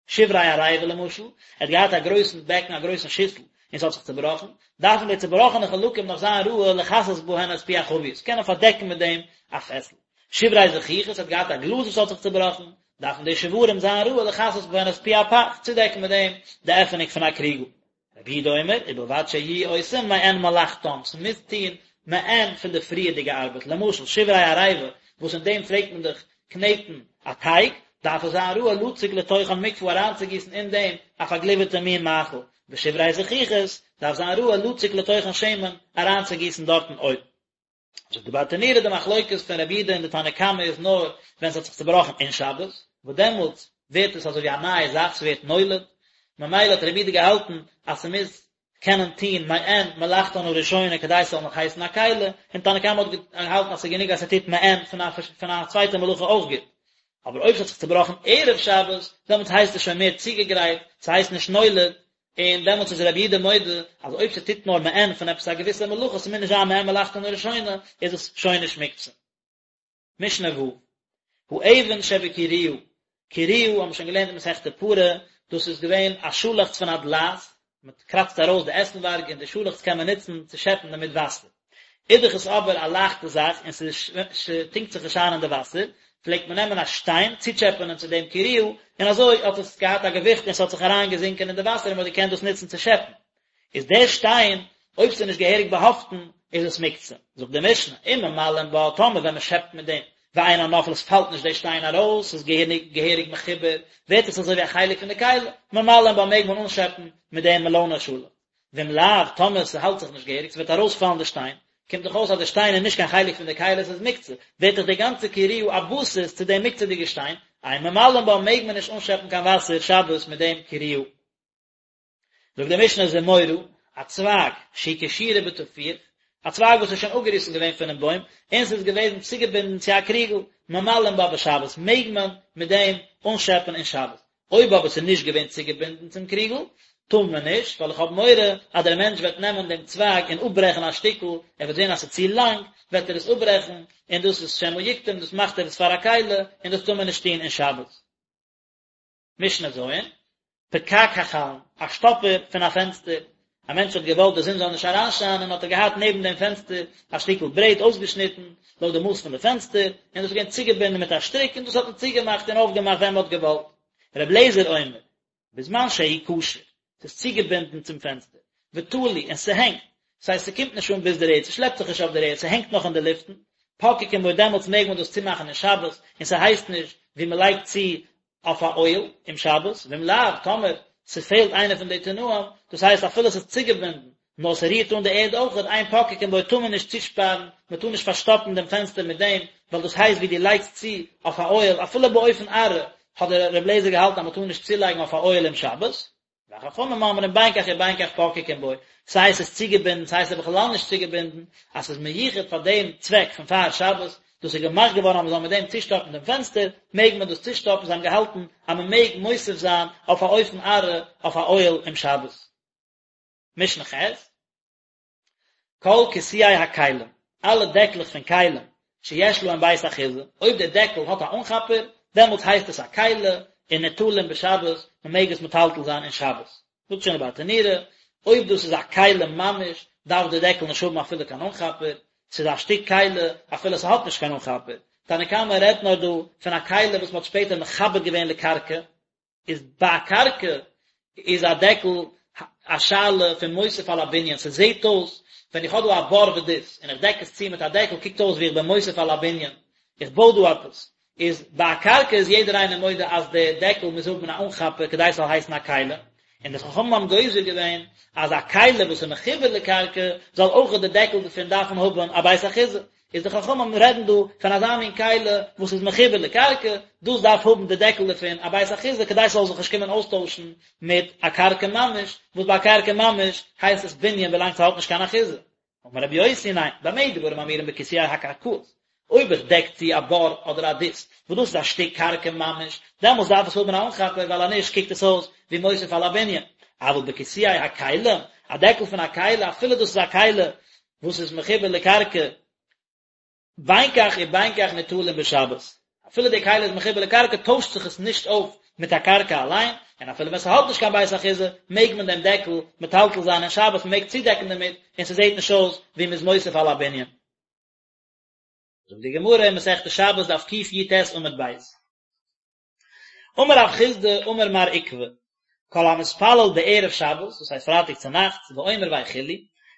שברי עריבה למשל, ער האט געהאט א גרויסן בעקן, א גרויסן שיסל, און ס'האט זיך צובראכן, דארפן די צובראכענע חלקים נאך זיין ראוי לכסות בהן את פי החבית, קענען פארדעקן מיט דעם א פעסל. שברי זכוכית, ער האט געהאט א גלאז וואס האט זיך צובראכן, דארפן די שברים זיין ראוי לכסות בהן את פי הפך, צודעקן מיט דעם די עפענונג פון א קריגל. רבי יהודה אומר, ובלבד שיהיו עושים מעין מלאכתם, ס'מוז טון מעין פון די פריערדיגע ארבעט, למשל שברי עריבה, וואס אין דעם פלעגט מען דאך קנעטן א טייג, דארף עס זיין ראוי לצוק לתוכן מקפה אריינצוגיסן אין דעם א פארגליווערטע מין מאכל, ושברי זכוכית, דארף זיין ראוי לצוק לתוכן שמן, אריינצוגיסן דארטן אויל. זאגט די ברטנורא די מחלוקת פון רבי יהודה און די תנא קמא איז נאר ווען ס'האט זיך צובראכן אין שבת, וואס דעמאלטס ווערט עס אזוי ווי א נייע זאך, ס'ווערט נולד, ממילא האט רבי יהודה געהאלטן אז ס'מוז קענען טון מעין מלאכתן הראשונה כדי ס'זאל נאך הייסן א כלי, און תנא קמא האט געהאלטן אז ס'איז גענוג אז ס'טוט מעין פון א פון א צווייטע מלאכה אויך גוט. אבער אויב ס'האט זיך צובראכן ערב שבת, דעמאלטס הייסט עס שוין מער צוגעגרייט, ס'הייסט נישט נולד, און דעמאלטס איז רבי יהודה מודה אז אויב ס'טוט נאר מעין פון עפעס א געוויסע מלאכה, ס'מוז נישט זיין מעין מלאכתן הראשונה, איז עס שוין נישט מוקצה. משנה ו', האבן שבקירויה, קירויה האבן מיר שוין געלערנט אין מסכת פרה, דאס איז געווען א שאלעכץ פון א דלעת, מען קראצט ארויס די עסנווארג און די שאלעכץ קען מען נוצן צו שעפן דערמיט וואסער. איז דאך עס אבער א לייכטע זאך און ס'טונקט זיך נישט איין אין די וואסער, פלעגט מען נעמען א שטיין צוטשעפענען צו דעם קירויה, און אזוי האט עס געהאט א געוויכט און ס'האט זיך אריינגעזינקען אין די וואסער און מ'האט געקענט דאס נוצן צו שעפן. איז דער שטיין, אויב ס'איז נישט געהעריג באהאפטן, איז עס מוקצה. זאגט די משנה, אם ממלאין בה, טאמער ווען מ'שעפט מיט דעם, ואינה נופלת, פאלט נישט דער שטיין ארויס, ס'איז געהעריג מחובר, ווערט עס אזוי ווי א חלק פון די כלי, ממלאין בה מעג מען אנשעפן מיט דעם מעלאנע שאלעכץ. ואם לאו, טאמער ס'האלט זיך נישט געהעריג, ס'וועט ארויספאלן די שטיין, קומט דאך אויס אז די שטיין איז נישט קיין חלק פון די כלי, ס'איז מוקצה, ווערט דאך די גאנצע קירויה א בסיס צו דעם מוקצה'דיגע שטיין, אין ממלאין בה מעג מען נישט אנשעפן קיין וואסער שבת מיט דעם קירויה. זאגט די משנה זמורה, א צווייג, שהיא קשורה בטפיח, א צווייג וואס איז שוין אפגעריסן געווען פונעם בוים, און ס'איז געוועזן צוגעבינדן צו א קריגל, ממלאין בה בשבת, מעג מען מיט דעם אנשעפן אין שבת. אויב אבער ס'איז נישט געווען צוגעבינדן צום קריגל, טאר מען נישט, ווייל איך האב מורא אז דער מענטש וועט נעמען דעם צווייג און אפברעכן א שטיקל, ער וועט זען אז ס'איז צו לאנג, וועט ער עס אפברעכן, און דאס איז שמא יקטום, דאס מאכט ער עס פאר א כלי, און דאס טאר מען נישט טון אין שבת. משנה ז', פקק החלון, א שטאפער פון א פענסטער, א מענטש האט געוואלט די זון זאל נישט אריינשיינען האט ער געהאט נעבן דעם פענסטער א שטיקל ברעט אויסגעשניטן לויט די מאס פון די פענסטער, און דאס איז געווען צוגעבינדן מיט א שטריק און דאס האט מען צוגעמאכט און אויפגעמאכט ווען מען האט געוואלט. ר' אליעזר אומר, בזמן שהוא קשור, ס'איז צוגעבינדן צום פענסטער, ותלוי, און ס'הענגט, ס'הייסט ס'קומט נישט אן ביז דער ערד, ס'שלעפט זיך נישט אויף דער ערד, ס'הענגט נאך אין די לופטן, פוקקין בו דעמאלטס מעג מען דאס צומאכן אין שבת, און ס'הייסט נישט ווי מ'לייגט צו אויף א אוהל אום שבת, ואם לאו, טאמער ס'פעלט איינע פון די תנאים, דאס הייסט אפילו ס'איז צוגעבינדן, נאר ס'רירט אן די ערד אויכעט, אין פוקקין בו טאר מען נישט צושפארן, מ'טאר נישט פארשטאפן דעם פענסטער מיט דעם, ווייל דאס הייסט ווי דו לייגסט צו אויף א אוהל, אפילו באופן עראי, האט דער רבי אליעזר געהאלטן אז מ'טאר נישט צולייגן אויף א אוהל אום שבת. וחכמים אומרים בין כך ובין כך פוקקין בו, סיי עס איז צוגעבינדן סיי עס איז בכלל נישט צוגעבינדן, אז ס'איז מיוחד פאר דעם צוועק פון פאר שבת, דאס איז געמאכט געווארן אז מ'זאל מיט דעם צושטאפן דעם פענסטער, מעג מען דאס צושטאפן, זיי האבן געהאלטן אז מ'מעג מוסיף זיין אויף א אופן עראי אויף א אוהל אום שבת. משנה ח'. כל כיסויי הכלים, אלע דעקלעך פון כלים, שיש להם בית אחיזה, אויב דער דעקל האט א אנכאפער, דעמאלטס הייסט עס א כלי, און ניטלים בשבת, מען מעג עס מטלטל זיין אין שבת. זאגט שוין דער ברטנורא, אויב דאס איז א כלי ממש, דארף דער דעקל נישט האבן אפילו קיין אנכאפער, ס'איז א שטיק כלי, אפילו ס'האט נישט קיין אנכאפער. תנא קמא רעדט נאר דא פון א כלי וואס מ'האט שפעטער מחבר געווען לקרקע, איז ביי א קרקע איז א דעקל א שאלה פון מוסיף על הבנין, ס'זעהט אויס ווען איך האב דא א בור ודות און איך דעק עס צו מיט א דעקל קוקט אויס ווי איך בין מוסיף על הבנין, איך בוי דא עפעס, איז ביי א קרקע איז יעדער איינער מודה אז די דעקל מוז האבן א אנכאפער כדי ס'זאל הייסן א כלי, און די חכמים האבן גוזר געווען אז א כלי וואס איז מחובר לקרקע זאל אויך די דעקל דערפון דארפן האבן א בית אחיזה, איז די חכמים רעדן דא פון אזא מין כלי וואס איז מחובר לקרקע, דאס דארף האבן די דעקל דערפון א בית אחיזה כדי ס'זאל זיך נישט קומען אויסטוישן מיט א קרקע ממש, וואס ביי א קרקע ממש הייסט עס בנין ווילאנג ס'האט נישט קיין אחיזה. אמר רבי יוסי ניין, במה דברים אמורים בכיסויי הקרקעות, אויב איך דעק צו א בור אדער א דות, וואס דאס איז א שטיק קרקע ממש, דעמאלס דארף עס האבן א אנכאפער ווייל אז נישט קוקט עס אויס ווי מוסיף על הבנין, אבל בכיסויי הכלים, א דעקל פון א כלי, אפילו דאס איז א כלי וואס איז מחובר לקרקע, בין כך ובין כך ניטלין בשבת, אפילו די כלי איז מחובר לקרקע טוישט זיך עס נישט אויף מיט א קרקע אליין, און אפילו ווען ס'האט נישט קיין בית אחיזה מעג מען דעם דעקל מטלטל זיין אין שבת, מ'מעג צודעקן דערמיט און ס'זעט נישט אויס ווי מ'איז מוסיף על הבנין. זאגט די גמרא אין מסכת שבת דף קי"ט עמוד ב'. אמר רב חסדא אמר מר עוקבא, כל המתפלל בערב שבת, דאס הייסט פרייטאג צו נאכטס, ואומר ויכולו,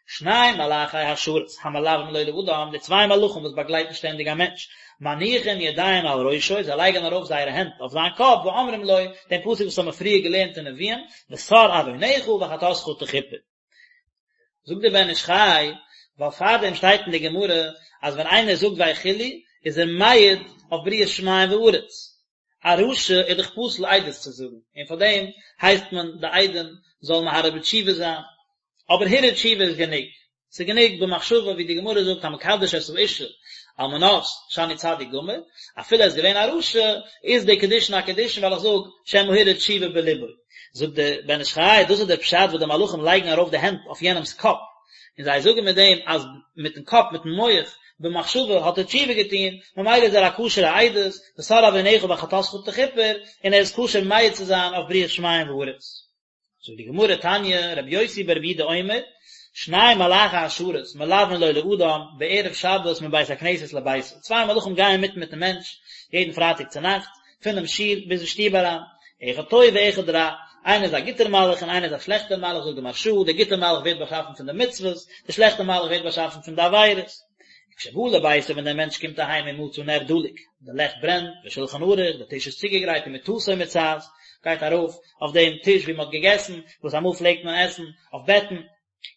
שני מלאכי השרת המלווים לו לאדם, די צוויי מלאכים וואס באגלייטן שטענדיג א מענטש, מניחין ידיהם על ראשו, זיי לייגן ארויף זייערע הענט אויף זיין קאפ, ואומרים לו, דעם פסוק וואס האבן מיר פריער געלערנט אין נביאים, וסר עונך וחטאתך תכופר. זאגט דער בן איש חי, ווייל פארדעם שטייט אין די גמרא אז ווען איינער זאגט ויכולו איז ער מעיד אויף בריאת שמים וארץ, א רשע איז דאך פסול עדות צו זאגן, און פאר דעם הייסט מען די עדים זאלן מהרהר בתשובה זיין, אבער הרהור תשובה איז גענוג, ס'איז גענוג במחשבה ווי די גמרא זאגט המקדש את האשה על מנת שאני צדיק גמור, אפילו ער איז געווען א רשע, איז די קידושין א קידושין ווייל איך זאג שמא הרהר תשובה בלבו. זאגט דער בן איש חי, דאס איז דער פשט וואס די מלאכים לייגן ארויף די הענט אויף יענעמ'ס קאפ, און זיי זאגן מיט דעם אז מיט'ן קאפ, מיט'ן מח, במחשבה האט ער תשובה געטון, ממילא איז ער א כשר'ע עדות, וסר עונך וחטאתך תכופר, און ער איז כשר מעיד צו זיין אויף בריאת שמים וארץ. זאגט די גמרא תניא, רבי יוסי ברבי יהודה אומר, שני מלאכי השרת מלווין לו לאדם בערב שבת מבית הכנסת לביתו, צוויי מלאכים גייען מיט מיטן מענטש יעדן פרייטאג צונאכטס, פונעם שול ביז אין שטוב אריין, אחד טוב ואחד רע, איינער איז א גוטער מלאך און איינער איז א שלעכטער מלאך, זאגט די מהרש"א, דער גוטער מלאך ווערט באשאפן פון די מצוות, דער שלעכטער מלאך ווערט באשאפן פון די עבירות. וכשבא לביתו ווען דער מענטש קומט אהיים ומצא נר דלוק, די לעכט ברענט, ושולחן ערוך, די טיש איז צוגעגרייט ומטתו מוצעת, גייט ארויף אויף דעם טיש ווי מען האט געגעסן, וואס אמאל פלעגט מען עסן אויף בעטן,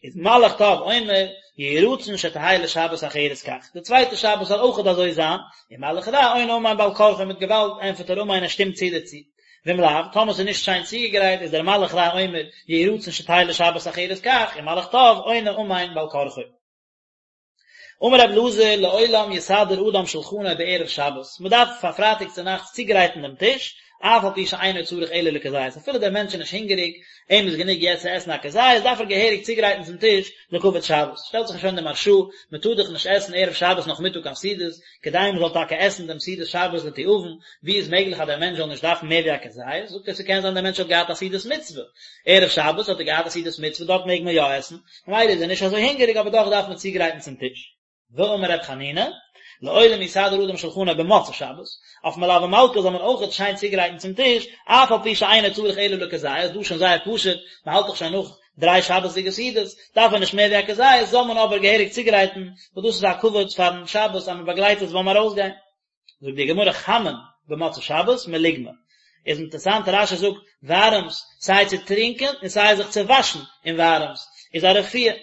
איז מלאך טוב אומר, יהי רצון שתהא לשבת אחרת כך, די צווייטע שבת זאל אויכעט אזוי זיין, און מלאך רע עונה אמן בעל כרחו מיט געוואלד ענטפערט ער אמן ער שטימט צו דערצו. ואם לאו, טאמער ס'איז נישט שיין צוגעגרייט איז דער מלאך רע אומר, יהי רצון שתהא לשבת אחרת כך, און מלאך טוב עונה אמן בעל כרחו. אמר רבי אלעזר לעולם יסדר אדם שלחנו בערב שבת, מען דארף פאר פרייטאג צו נאכטס צוגרייטן דעם טיש, אף על פי שאינו צריך אלא לכזית, אפילו דער מענטש איז נישט הונגעריג, אים איז גענוג יעצט צו עסן א כזית, דארף ער געהעריג צוגרייטן צום טיש לכבוד שבת. שטעלט זיך שוין די מהרש"א, מען טאר דאך נישט עסן ערב שבת נאכמיטאג קיין סעודות, כדי מען זאל טאקע עסן דעם סעודת שבת לתיאבון, ווי איז מעגליך אז דער מענטש זאל נישט דארפן מער ווי א כזית, זאגט ער ס'קען זיין דער מענטש האט געהאט א סעודת מצוה, ערב שבת האט ער געהאט א סעודת מצוה דארט מעג מען יא עסן, ממילא איז ער נישט אזוי הונגעריג אבער דאך דארף מען צוגרייטן צום טיש. ואמר ר' חנינא, לעולם יסדר אדם שלחנו במוצאי שבת, אויף מלוה מלכה זאל מען אויכעט שיין צוגרייטן צום טיש, אף על פי שאינו צריך אלא לכזית, דא שוין זייער פשוט, מען האלט דאך שוין נאך דריי שבת'דיגע סעודות, דארף ער נישט מער ווי א כזית, זאל מען אבער געהעריג צוגרייטן, וואס דאס איז א כבוד פארן שבת אז מען באגלייט עס ביים ארויסגיין. זאגט די גמרא חמין במוצאי שבת מלוגמא, איז אינטערסאנט רש"י זאגט ווארעמס סיי צו טרינקען און סיי זיך צו וואשן אין ווארעמס איז א רפואה,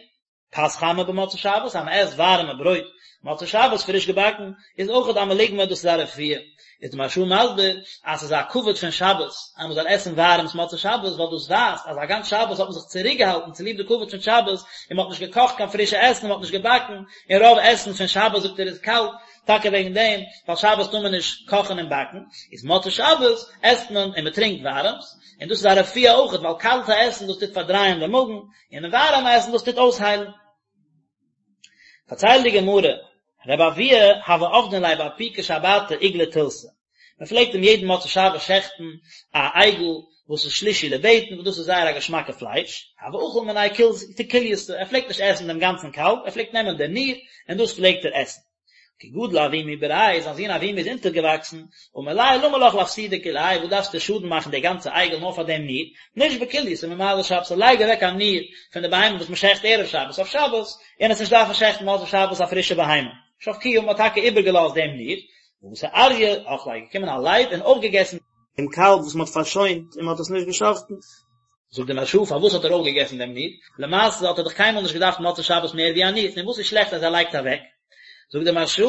פת חמה במוצאי שבת אז מען עסט ווארעמע ברויט מוצאי שבת פריש געבאקן איז אויכעט א מלוגמא דאס איז א רפואה, איז די מהרש"א מסביר אז ס'איז א כבוד פון שבת אז מען זאל עסן ווארעמס מוצאי שבת ווייל דאס ווייזט אז א גאנץ שבת האט מען זיך צוריקגעהאלטן צוליב די כבוד פון שבת און מען האט נישט געקאכט קיין פרישע עסן און מען האט נישט געבאקן און רוב עסן פון שבת זאגט ער איז קאלט טאקע וועגן דעם, ווייל שבת טאר מען נישט קאכן און באקן, איז מוצאי שבת עסט מען און מען טרינקט ווארעמס, און דאס איז א רפואה אויכעט, ווייל קאלטע עסן דאס טוט פארדרייען דעם מאגן, און ווארעמע עסן דאס טוט אויסהיילן. פארציילט די גמרא, רבי אבוה הוה עבדין ליה באפוקי שבתא עיגלא תילתא, מען פלעגט אים יעדן מוצאי שבת שעכטן א עגל וואס איז שלישי לבטן, וואס דאס איז זייער א געשמאקע פלייש, הוה אכיל מיניה כולייתא, ער פלעגט נישט עסן דעם גאנצן קאלב, ער פלעגט נעמען די ניר און דאס פלעגט ער עסן. כי גדיל אבימי בריה, זיין זון אבימי איז אונטערגעוואקסן, אמר ליה למה לך לאפסודי כולי האי, וואס דארפסטו שאדן מאכן די גאנצע עגל נאר פאר דעם ניר, נשבוק כולייתא ממעלי שבתא, לייג אוועק א ניר פון די בהמה וואס מען שעכט ערב שבת אויף שבת, און עס נישט דארפן שעכטן מוצאי שבת א פרישע בהמה. שבקוה, מען האט טאקע איבערגעלאזט דעם ניר, ואתא אריא אכליה, איז געקומען א לייב און אויפגעגעסן דעם קאלב וואס מען האט פארשוינט און מען האט עס נישט געשאכטן. זאגט די מהרש"א פארוואס האט ער אויפגעגעסן דעם ניר? למעשה האט ער דאך קיינמאל נישט געדארפט מוצאי שבת מער ווי א ניר, און וואס איז שלעכט אז ער לייגט אוועק? זאגט די מהרש"א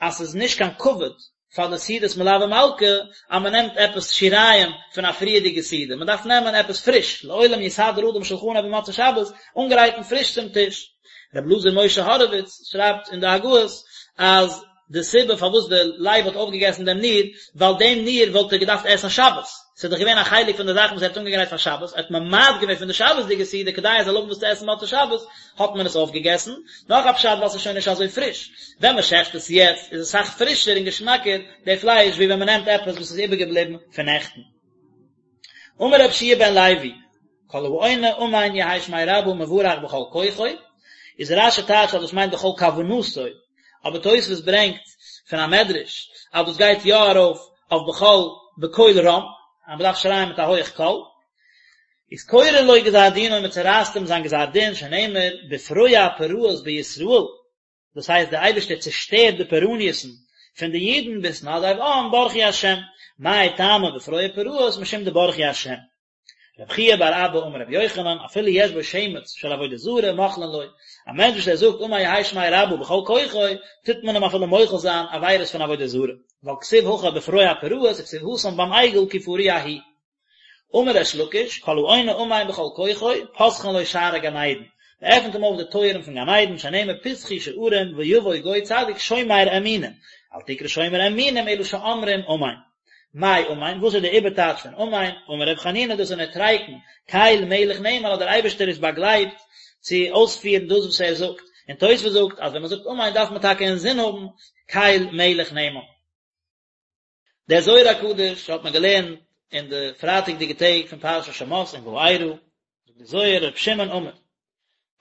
אז ס'איז נישט קיין כבוד פאר די סעודת מלוה מלכה אז מען נעמט עפעס שיריים פון א פריערדיגע סעודה, מען דארף נעמען עפעס פריש, לעולם יסדר אדם שלחנו במוצאי שבת, אנגרייטן פריש צום טיש. רבי אלעזר משה הורוויץ שרייבט אין די הגהות אז די סיבה פארוואס די לייב האט אויפגעגעסן דעם ניר, ווייל דעם ניר וואלט ער געדארפט עסן שבת, ס'איז דאך געווען א חלק פון די זאכן וואס ער האט אנגעגרייט פאר שבת, ער האט ממעט געווען פון די שבת'דיגע סעודה כדי ער זאל האבן וואס צו עסן מוצאי שבת, האט מען עס אויפגעגעסן, נאך א פשט ווייל ס'איז שוין נישט אזוי פריש, ווען מען שעכט עס יעצט איז עס אסאך פרישער און געשמאקער די פלייש ווי ווען מען נעמט עפעס וואס איז איבערגעבליבן פון נעכטן. אמר רבי יהושע בן לוי, כל העונה אמן יהא שמיה רבא מברך בכל כוחו, איז רש"י טייטשט אז דאס מיינט בכל כוונתו, אבער תוספות ברענגט פון א מדרש אז דאס גייט יא ארויף אויף בכל בקול רם, אז מען דארף שרייען מיט א הויעך קול, איז קורעין לו גזר דינו מען צורייסט אים זיין גזר דין שנאמר בפרוע פרעות בישראל, דאס הייסט דער אייבערשטער צעשטערט די פורעניות'ן פון די אידן בהתנדב עם ברכו השם, מאי טעמא בפרוע פרעות משום דברכו השם. רבי חייא בר אבא אמר רבי יוחנן אפילו יש בו שמץ של עבודה זרה מוחלין לו, א מענטש וואס ער זאגט אמן יהא שמיה רבא בכל כוחו, טוט מען אים אפילו מוחל זיין עבירות פון עבודה זרה, ווייל כתיב הכא בפרוע פרעות וכתיב התם ביים עגל כי פרוע הוא. אמר ריש לקיש, כל העונה אמן בכל כוחו, פותחין לו שערי גן עדן, מען עפנט אים אויף די טויערן פון גן עדן, שנאמר פתחו שערים ויבוא גוי צדיק שומר אמונים, אל תקרא שומר אמונים אלא שאומרים אמן. מאי אמן, וואס איז די איבערטייטש פון אמן? אמר ר' חנינא דאס איז נוטריקון, קל מלך נאמן אז דער אייבערשטער איז באגלייבט צו אויספירן דאס וואס ער זאגט, און תוספות זאגט אז ווען מען זאגט אמן דארף מען טאקע אינזין האבן קל מלך נאמן. דער זוהר הקדוש האט מען געלערנט אין די פרייטאג'דיגע טעג פון פרשת שמות און וארא, זאגט דער זוהר ר' שמעון אמר.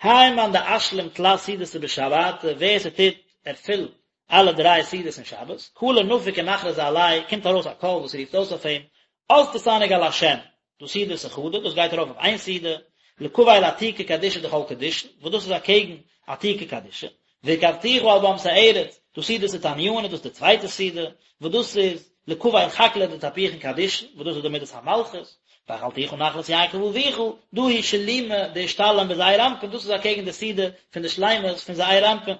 האי מאן דאשלים תלת סעודתא בשבתא, ווער ס'טוט ערפילן אלע דריי סעודות אין שבת, קלא נפיק ומכרזא עליה, קומט ארויס א קול וואס רופט אויס אויף אים, אז תתענג על השם, דא סעודתא חדא, דאס גייט ארויף אויף איין סעודה, לקבל עתיקא קדישא דכל קדישין, וואס דאס איז אקעגן עתיקא קדישא, והרכבתיך על במתי ארץ, דא סעודתא תניינא, דאס איז די צווייטע סעודה, וואס דאס איז לקבל חקלא דתפוחין קדישין, וואס דאס איז די מידת המלכות, והאכלתיך נחלת יעקב אביך, דא היא שלימא דאשתלים בזעיר אנפין, דאס איז אקעגן די סעודה פון די שלימות פון זעיר אנפין.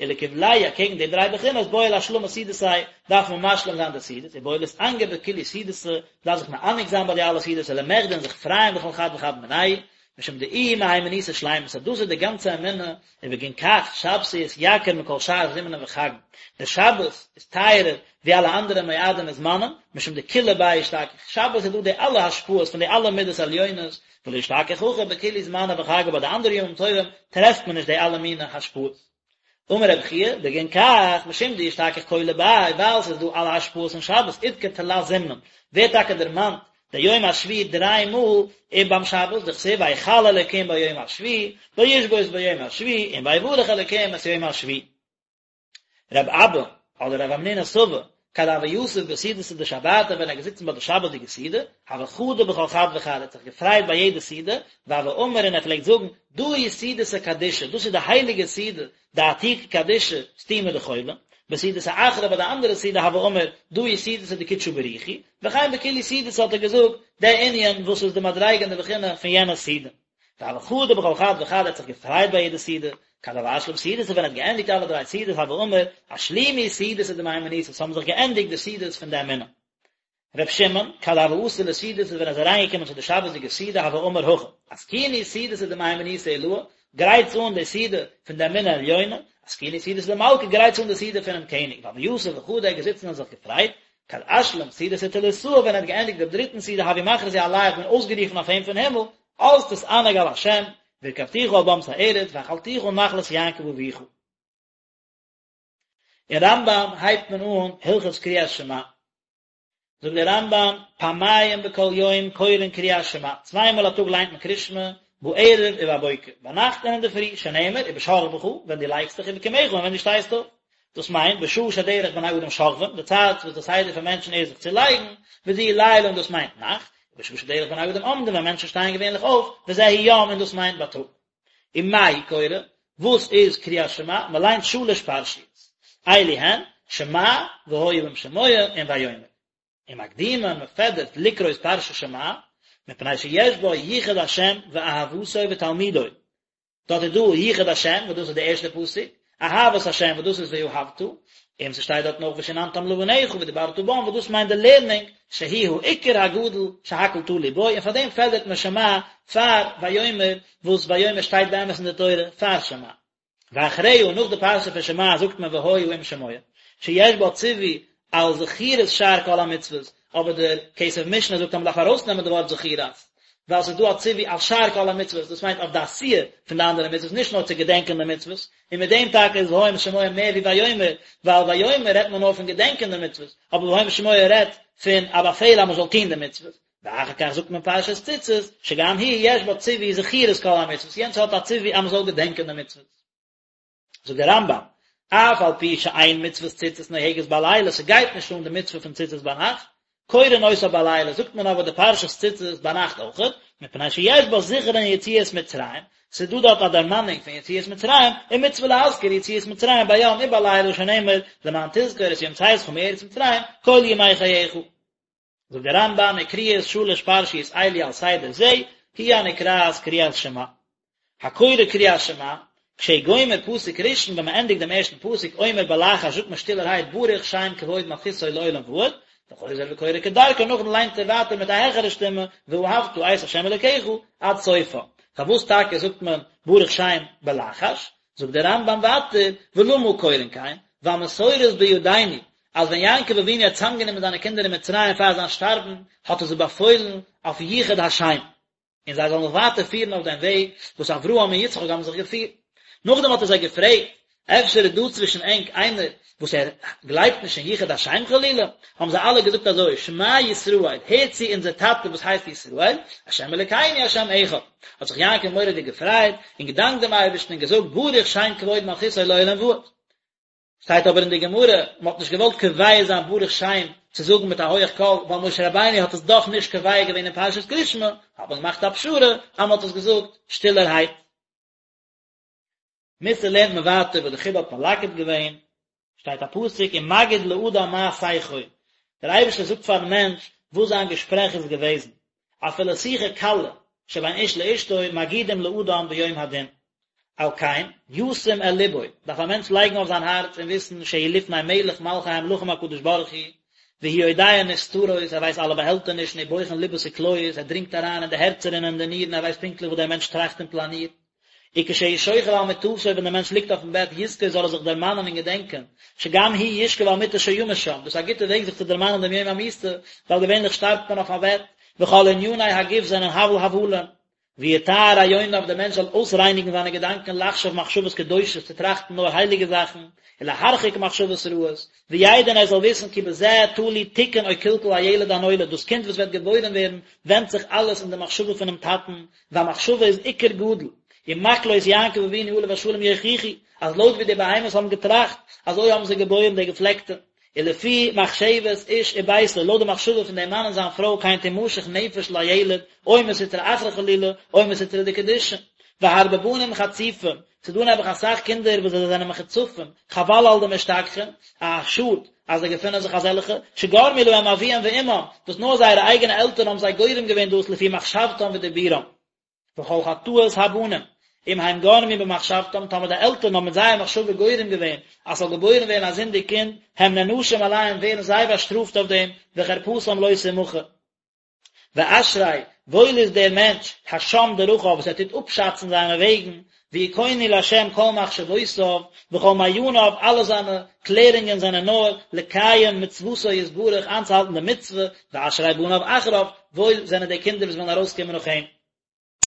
ולקבלייהו אקעגן די דריי בחינות בעי לאשלמא סעודתיה דארף מען משלים זיין די סעודות ובעי לאתענגא בכולהו סעודתא דארף זיך מענג זיין ביי די אלע סעודות ולמחדי און זיך פרייען בכל חד וחד מינייהו משום דאיהי מהימנותא שלימתא דאס איז די גאנצע אמונה ובגין כך שבתא אתיקר מכל שאר זמנין וחגין דער שבת איז טייערער ווי אלע אנדערע מועדים און זמנים משום דכולא ביה אשתכח שבת איז דא די אלע השפעות פון די אלע מידות עליונות ולא אשתכח הכי בכולהו זמני וחגי ביי די אנדערע ימים טובים טרעפט מען נישט די אלע מיני השפעות. אמר רבי חייא, בגין כך, משום דאשתכח כולא ביה, ווייל ס'איז דא אלע השפעות אין שבת, אדכר תלת זמנין, ווערט טאקע דערמאנט דער יום השביעי דריי מאל אין ביים שבת, דכתיב ויכל אלוקים ביום השביעי, וישבות ביום השביעי, און ויברך אלוקים את יום השביעי. רב אבא, אדער רב המנונא סבא, כד הוה יתיב בסעודתא דשבתא ווען ער איז געזיצן ביי די שבת'דיגע סעודה, הוה חדי בכל חד וחד, ער האט זיך געפרייט ביי יעדע סעודה, והוה אמר און ער פלעגט זאגן, דא היא סעודתא קדישא, דאס איז די הייליגע סעודה, דעתיקא קדישא, סתימא דכולא, בסעודתא אחרא ביי די אנדערע סעודה הוה אמר, דא היא סעודתא דקודשא בריך הוא, וכן בכולהו סעודתא האט ער געזאגט, די ענין וואס איז די מדריגה און די בחינה פון יענע סעודה. והוה חדי בכל חד וחד ער האט זיך געפרייט ביי יעדע סעודה, כד הוה אשלים סעודתא ווען ער האט געענדיגט אלע דריי סעודות הוה אמר, אשלימו סעודתא דמהימנותא, ס'האבן זיך געענדיגט די סעודות פון די אמונה. ר' שמעון, כד הוה אתי לסעודתא ווען ער איז אריינגעקומען צו די שבת'דיגע סעודה הוה אמר הכי, אתקינו סעודתא דמהימנותא עילאה, גרייטס אן די סעודה פון די אמונה עליונה, אתקינו סעודתא דמלכא, גרייטס אן די סעודה פונעם קעניג, והוה יתיב וחדי ער איז געזיצן און זיך געפרייט, כד אשלים סעודתא תליתאה ווען ער האט געענדיגט דעם דריטן סעודה הוו מכרזי עליה האט מען אויסגערופן אויף אים פון הימל, אז תתענג על השם, והרכבתיך על במתי ארץ, והאכלתיך נחלת יעקב אביך. אין רמב"ם הייבט מען אן הלכות קריאת שמע. זאגט דער רמב"ם, פעמיים בכל יום קורין קריאת שמע, צוויי מאל א טאג ליינט מען קריאת שמע, בערב ובבוקר, ביינאכט און אינדערפרי, שנאמר, ובשכבך, ווען דו לייגסט דיך, ובקומך, און ווען דו שטייסט אויף. דאס מיינט, בשעה שדרך בני אדם שוכבים, די צייט וואס די סדר פון מענטשן איז זיך צו לייגן, וזהו לילה און דאס מיינט נאכט, ובשעה שדרך בני אדם עומדים, ווען מענטשן שטייען געווענליך אויף, וזהו יום און דאס מיינט בייטאג. ומה הוא קורא? וואס איז קריאת שמע? מען ליינט שלש פרשיות. אלו הן, שמע, והיה אם שמוע, און ויאמר. ומקדימין, מען פעדערט לקרות פרשת שמע, מפני שיש בה ייחוד השם ואהבתו ותלמודו. דארט איז דא ייחוד השם וואס דאס איז די ערשטע פסוק, אהבת השם וואס דאס איז ואהבת, און ס'שטייט דארטן אויך ושננתם לבניך ודברת בם וואס דאס מיינט די לערנונג, שהוא העיקר הגדול שהכל תלוי בו, און פאר דעם פעדערט מען שמע פאר ויאמר, וואס ויאמר שטייט באמת אין די תורה פאר שמע. ואחריה, נאך די פרשה פון שמע זאגט מען והיה אם שמוע, שיש בה ציווי על זכירת שאר כל המצוות, אבער דער כסף משנה זאגט אז מען דארף ארויסנעמען די ווארט זכירת, ווייל ס'איז דא א ציווי על שאר כל המצוות, דאס מיינט אויף די עשייה פון די אנדערע מצוות, נישט נאר צו געדענקען די מצוות, און מיט דעם טאקע איז והיה אם שמוע מער ווי ויאמר, ווייל ויאמר רעדט מען נאר פון געדענקען די מצוות, אבער והיה אם שמוע רעדט פון א באפעל אז מען זאל טון די מצוות. ואחר כך זאגט מען פרשת ציצית, שגם היא יש בה ציווי זכירת כל המצוות, יענץ האט א ציווי אז מען זאל געדענקען די מצוות. זאגט דער רמב"ם, אף על פי שאין מצוות ציצית נוהגת בלילה, ס'גייט נישט אן די מצוה פון ציצית ביינאכט, קורין אותה בלילה, זאגט מען אבער די פרשת ציצית ביינאכט אויכעט, מפני שיש בה זכרון יציאת מצרים, ס'איז דא דארט א דערמאנונג פון יציאת מצרים, ומצוה להזכיר יציאת מצרים ביום ובלילה שנאמר, למען תזכור את יום צאתך מארץ מצרים כל ימי חייך. זאגט דער רמב"ם וקריאת שלש פרשיות אלו על סדר זה היא הנקראת קריאת שמע. הקורא קריאת שמע, כשהוא גומר פסוק ראשון ווען מען ענדיגט דעם ערשטן פסוק אומר בלחש זאגט מען שטילערהייט ברוך שם כבוד מלכותו לעולם ועד, וחוזר וקורא כדרכו נאכדעם ליינט ער ווייטער מיט א העכערע שטימע ואהבת את ה' אלוקיך עד סופה. פארוואס טאקע זאגט מען ברוך שם בלחש? זאגט דער רמב"ם ווייטער, ולמה קורין כן, ווייל מסורת בידינו, אז ווען יעקב אבינו האט צוזאמגענומען זיינע קינדער אין מצרים פאר זיין שטארבן, האט ער זיי באפוילן אויף יחוד השם, און זיי זאלן זיך ווייטער פירן אויף דעם וועג וואס אברהם און יצחק האבן זיך געפירט. נאכדעם האט ער זיי געפרעגט. אפשר איז דא צווישן ענק איינער וואס ער גלייבט נישט אין יחוד השם חלילה? האבן זיי אלע געזאגט אזוי, שמע ישראל, הער צו אונזער טאטע וואס הייסט ישראל, השם אלוקינו השם אחד. האט זיך יעקב מורא'דיג געפרייט, און געדאנקט דעם אייבערשטן און געזאגט, ברוך שם כבוד מלכותו לעולם ועד. שטייט אבער אין די גמרא, מען האט נישט געוואלט קובע זיין ברוך שם צו זאגן מיט א הויעך קול, ווייל משה רבינו האט עס דאך נישט קובע געווען אין פרשת קריאת שמע, האט מען געמאכט א פשרה אז מען האט עס געזאגט שטילערהייט. מוסר לערנט מען ווייטער וואס די חיד"א האט מלקט געווען, שטייט א פסוק ומגיד לאדם מה שיחו, דער אייבערשטער זאגט פארן מענטש וואס זיין געשפרעך איז געוועזן, אפילו שיחה קלה שבין איש לאשתו מגידים לאדם ביום הדין. על כן, ישים אל לבו, דארף א מענטש לייגן אויף זיין הארץ און וויסן שהוא לפני מלך מלכי המלכים הקדוש ברוך הוא, והוא יודע נסתרות, ער ווייסט אלע באהעלטענישן, ובוחן לבות וכליות, ער דרינגט אריין אין די הערצער און אין די נירן, ער ווייסט פונקטליך וואס דער מענטש טראכט און פלאנירט. וכשהוא שוכב על מיטתו ווען דער מענטש ליגט אויפן בעט יזכור זאל ער זיך דערמאנען און געדענקען, שגם הוא ישכב על מיטה שימות שם, דאס איז א גוטע וועג זיך צו דערמאנען דעם יום המיתה, ווייל געווענליך שטארבט מען אויף א בעט, וכל עניני הגוף זענען הבל הבלים. ויטהר רעיוניו דער מענטש זאל אויסרייניגן זיינע געדאנקען לחשוב מחשבות קדושות צו טראכטן נאר הייליגע זאכן, ולהרחיק מחשבות רעות, וידע און ער זאל וויסן כי בזה תלוי תיקון או קלקול הילד הנולד דאס קינד וואס וועט געבוירן ווערן ווענדט זיך אלעס אין די מחשבה פונעם טאטן, והמחשבה איז עיקר גדול, ומקלות יעקב אבינו עליו השלום יוכיחו, אז לויט ווי די בהמות האבן געטראכט, אזוי האבן זיי געבוירן די געפלעקטע. ולפי מחשבת איש וביתו, לויט די מחשבה פון דעם מאן און זיין פרוי כן תמשך נפש לילד, או מסטרא אחרא חלילה, או מסטרא דקדושה. והרבה בנים חצופים, ס'איז דא נעבעך אסאך קינדער וואס זיי זענען מחוצפים, חבל על דמשתכחין, א שאד אז זיי געפינען זיך אזעלכע, שגרמו להם אביהם ואמם, וואס נאר זייערע אייגענע עלטערן האבן זיי גורם געווען דאס לפי מחשבתם ודיבורם. וכל חטאות הבנים, אם הם גרמו במחשבתם, טאמער די עלטערן האבן מיט זייער מחשבה גורם געווען אז ס'זאל געבוירן ווערן א זינדיג קינד, הם נענשים עליהם ווערן זיי באשטראפט אויף דעם, וחרפתם לא תמחה. ואשרי, וואויל איז דער מענטש, השם דרכיו, וואס ער טוט אפשאצן זיינע וועגן, ויכונו לה' כל מחשבותיו, וכל מעייניו, אלע זיינע קלערונגען זענען נאר לקיים מצוותו יתברך, איינצוהאלטן די מצוה, ואשרי בניו אחריו, וואויל זענען די קינדער וואס וועלן ארויסקומען נאך אים.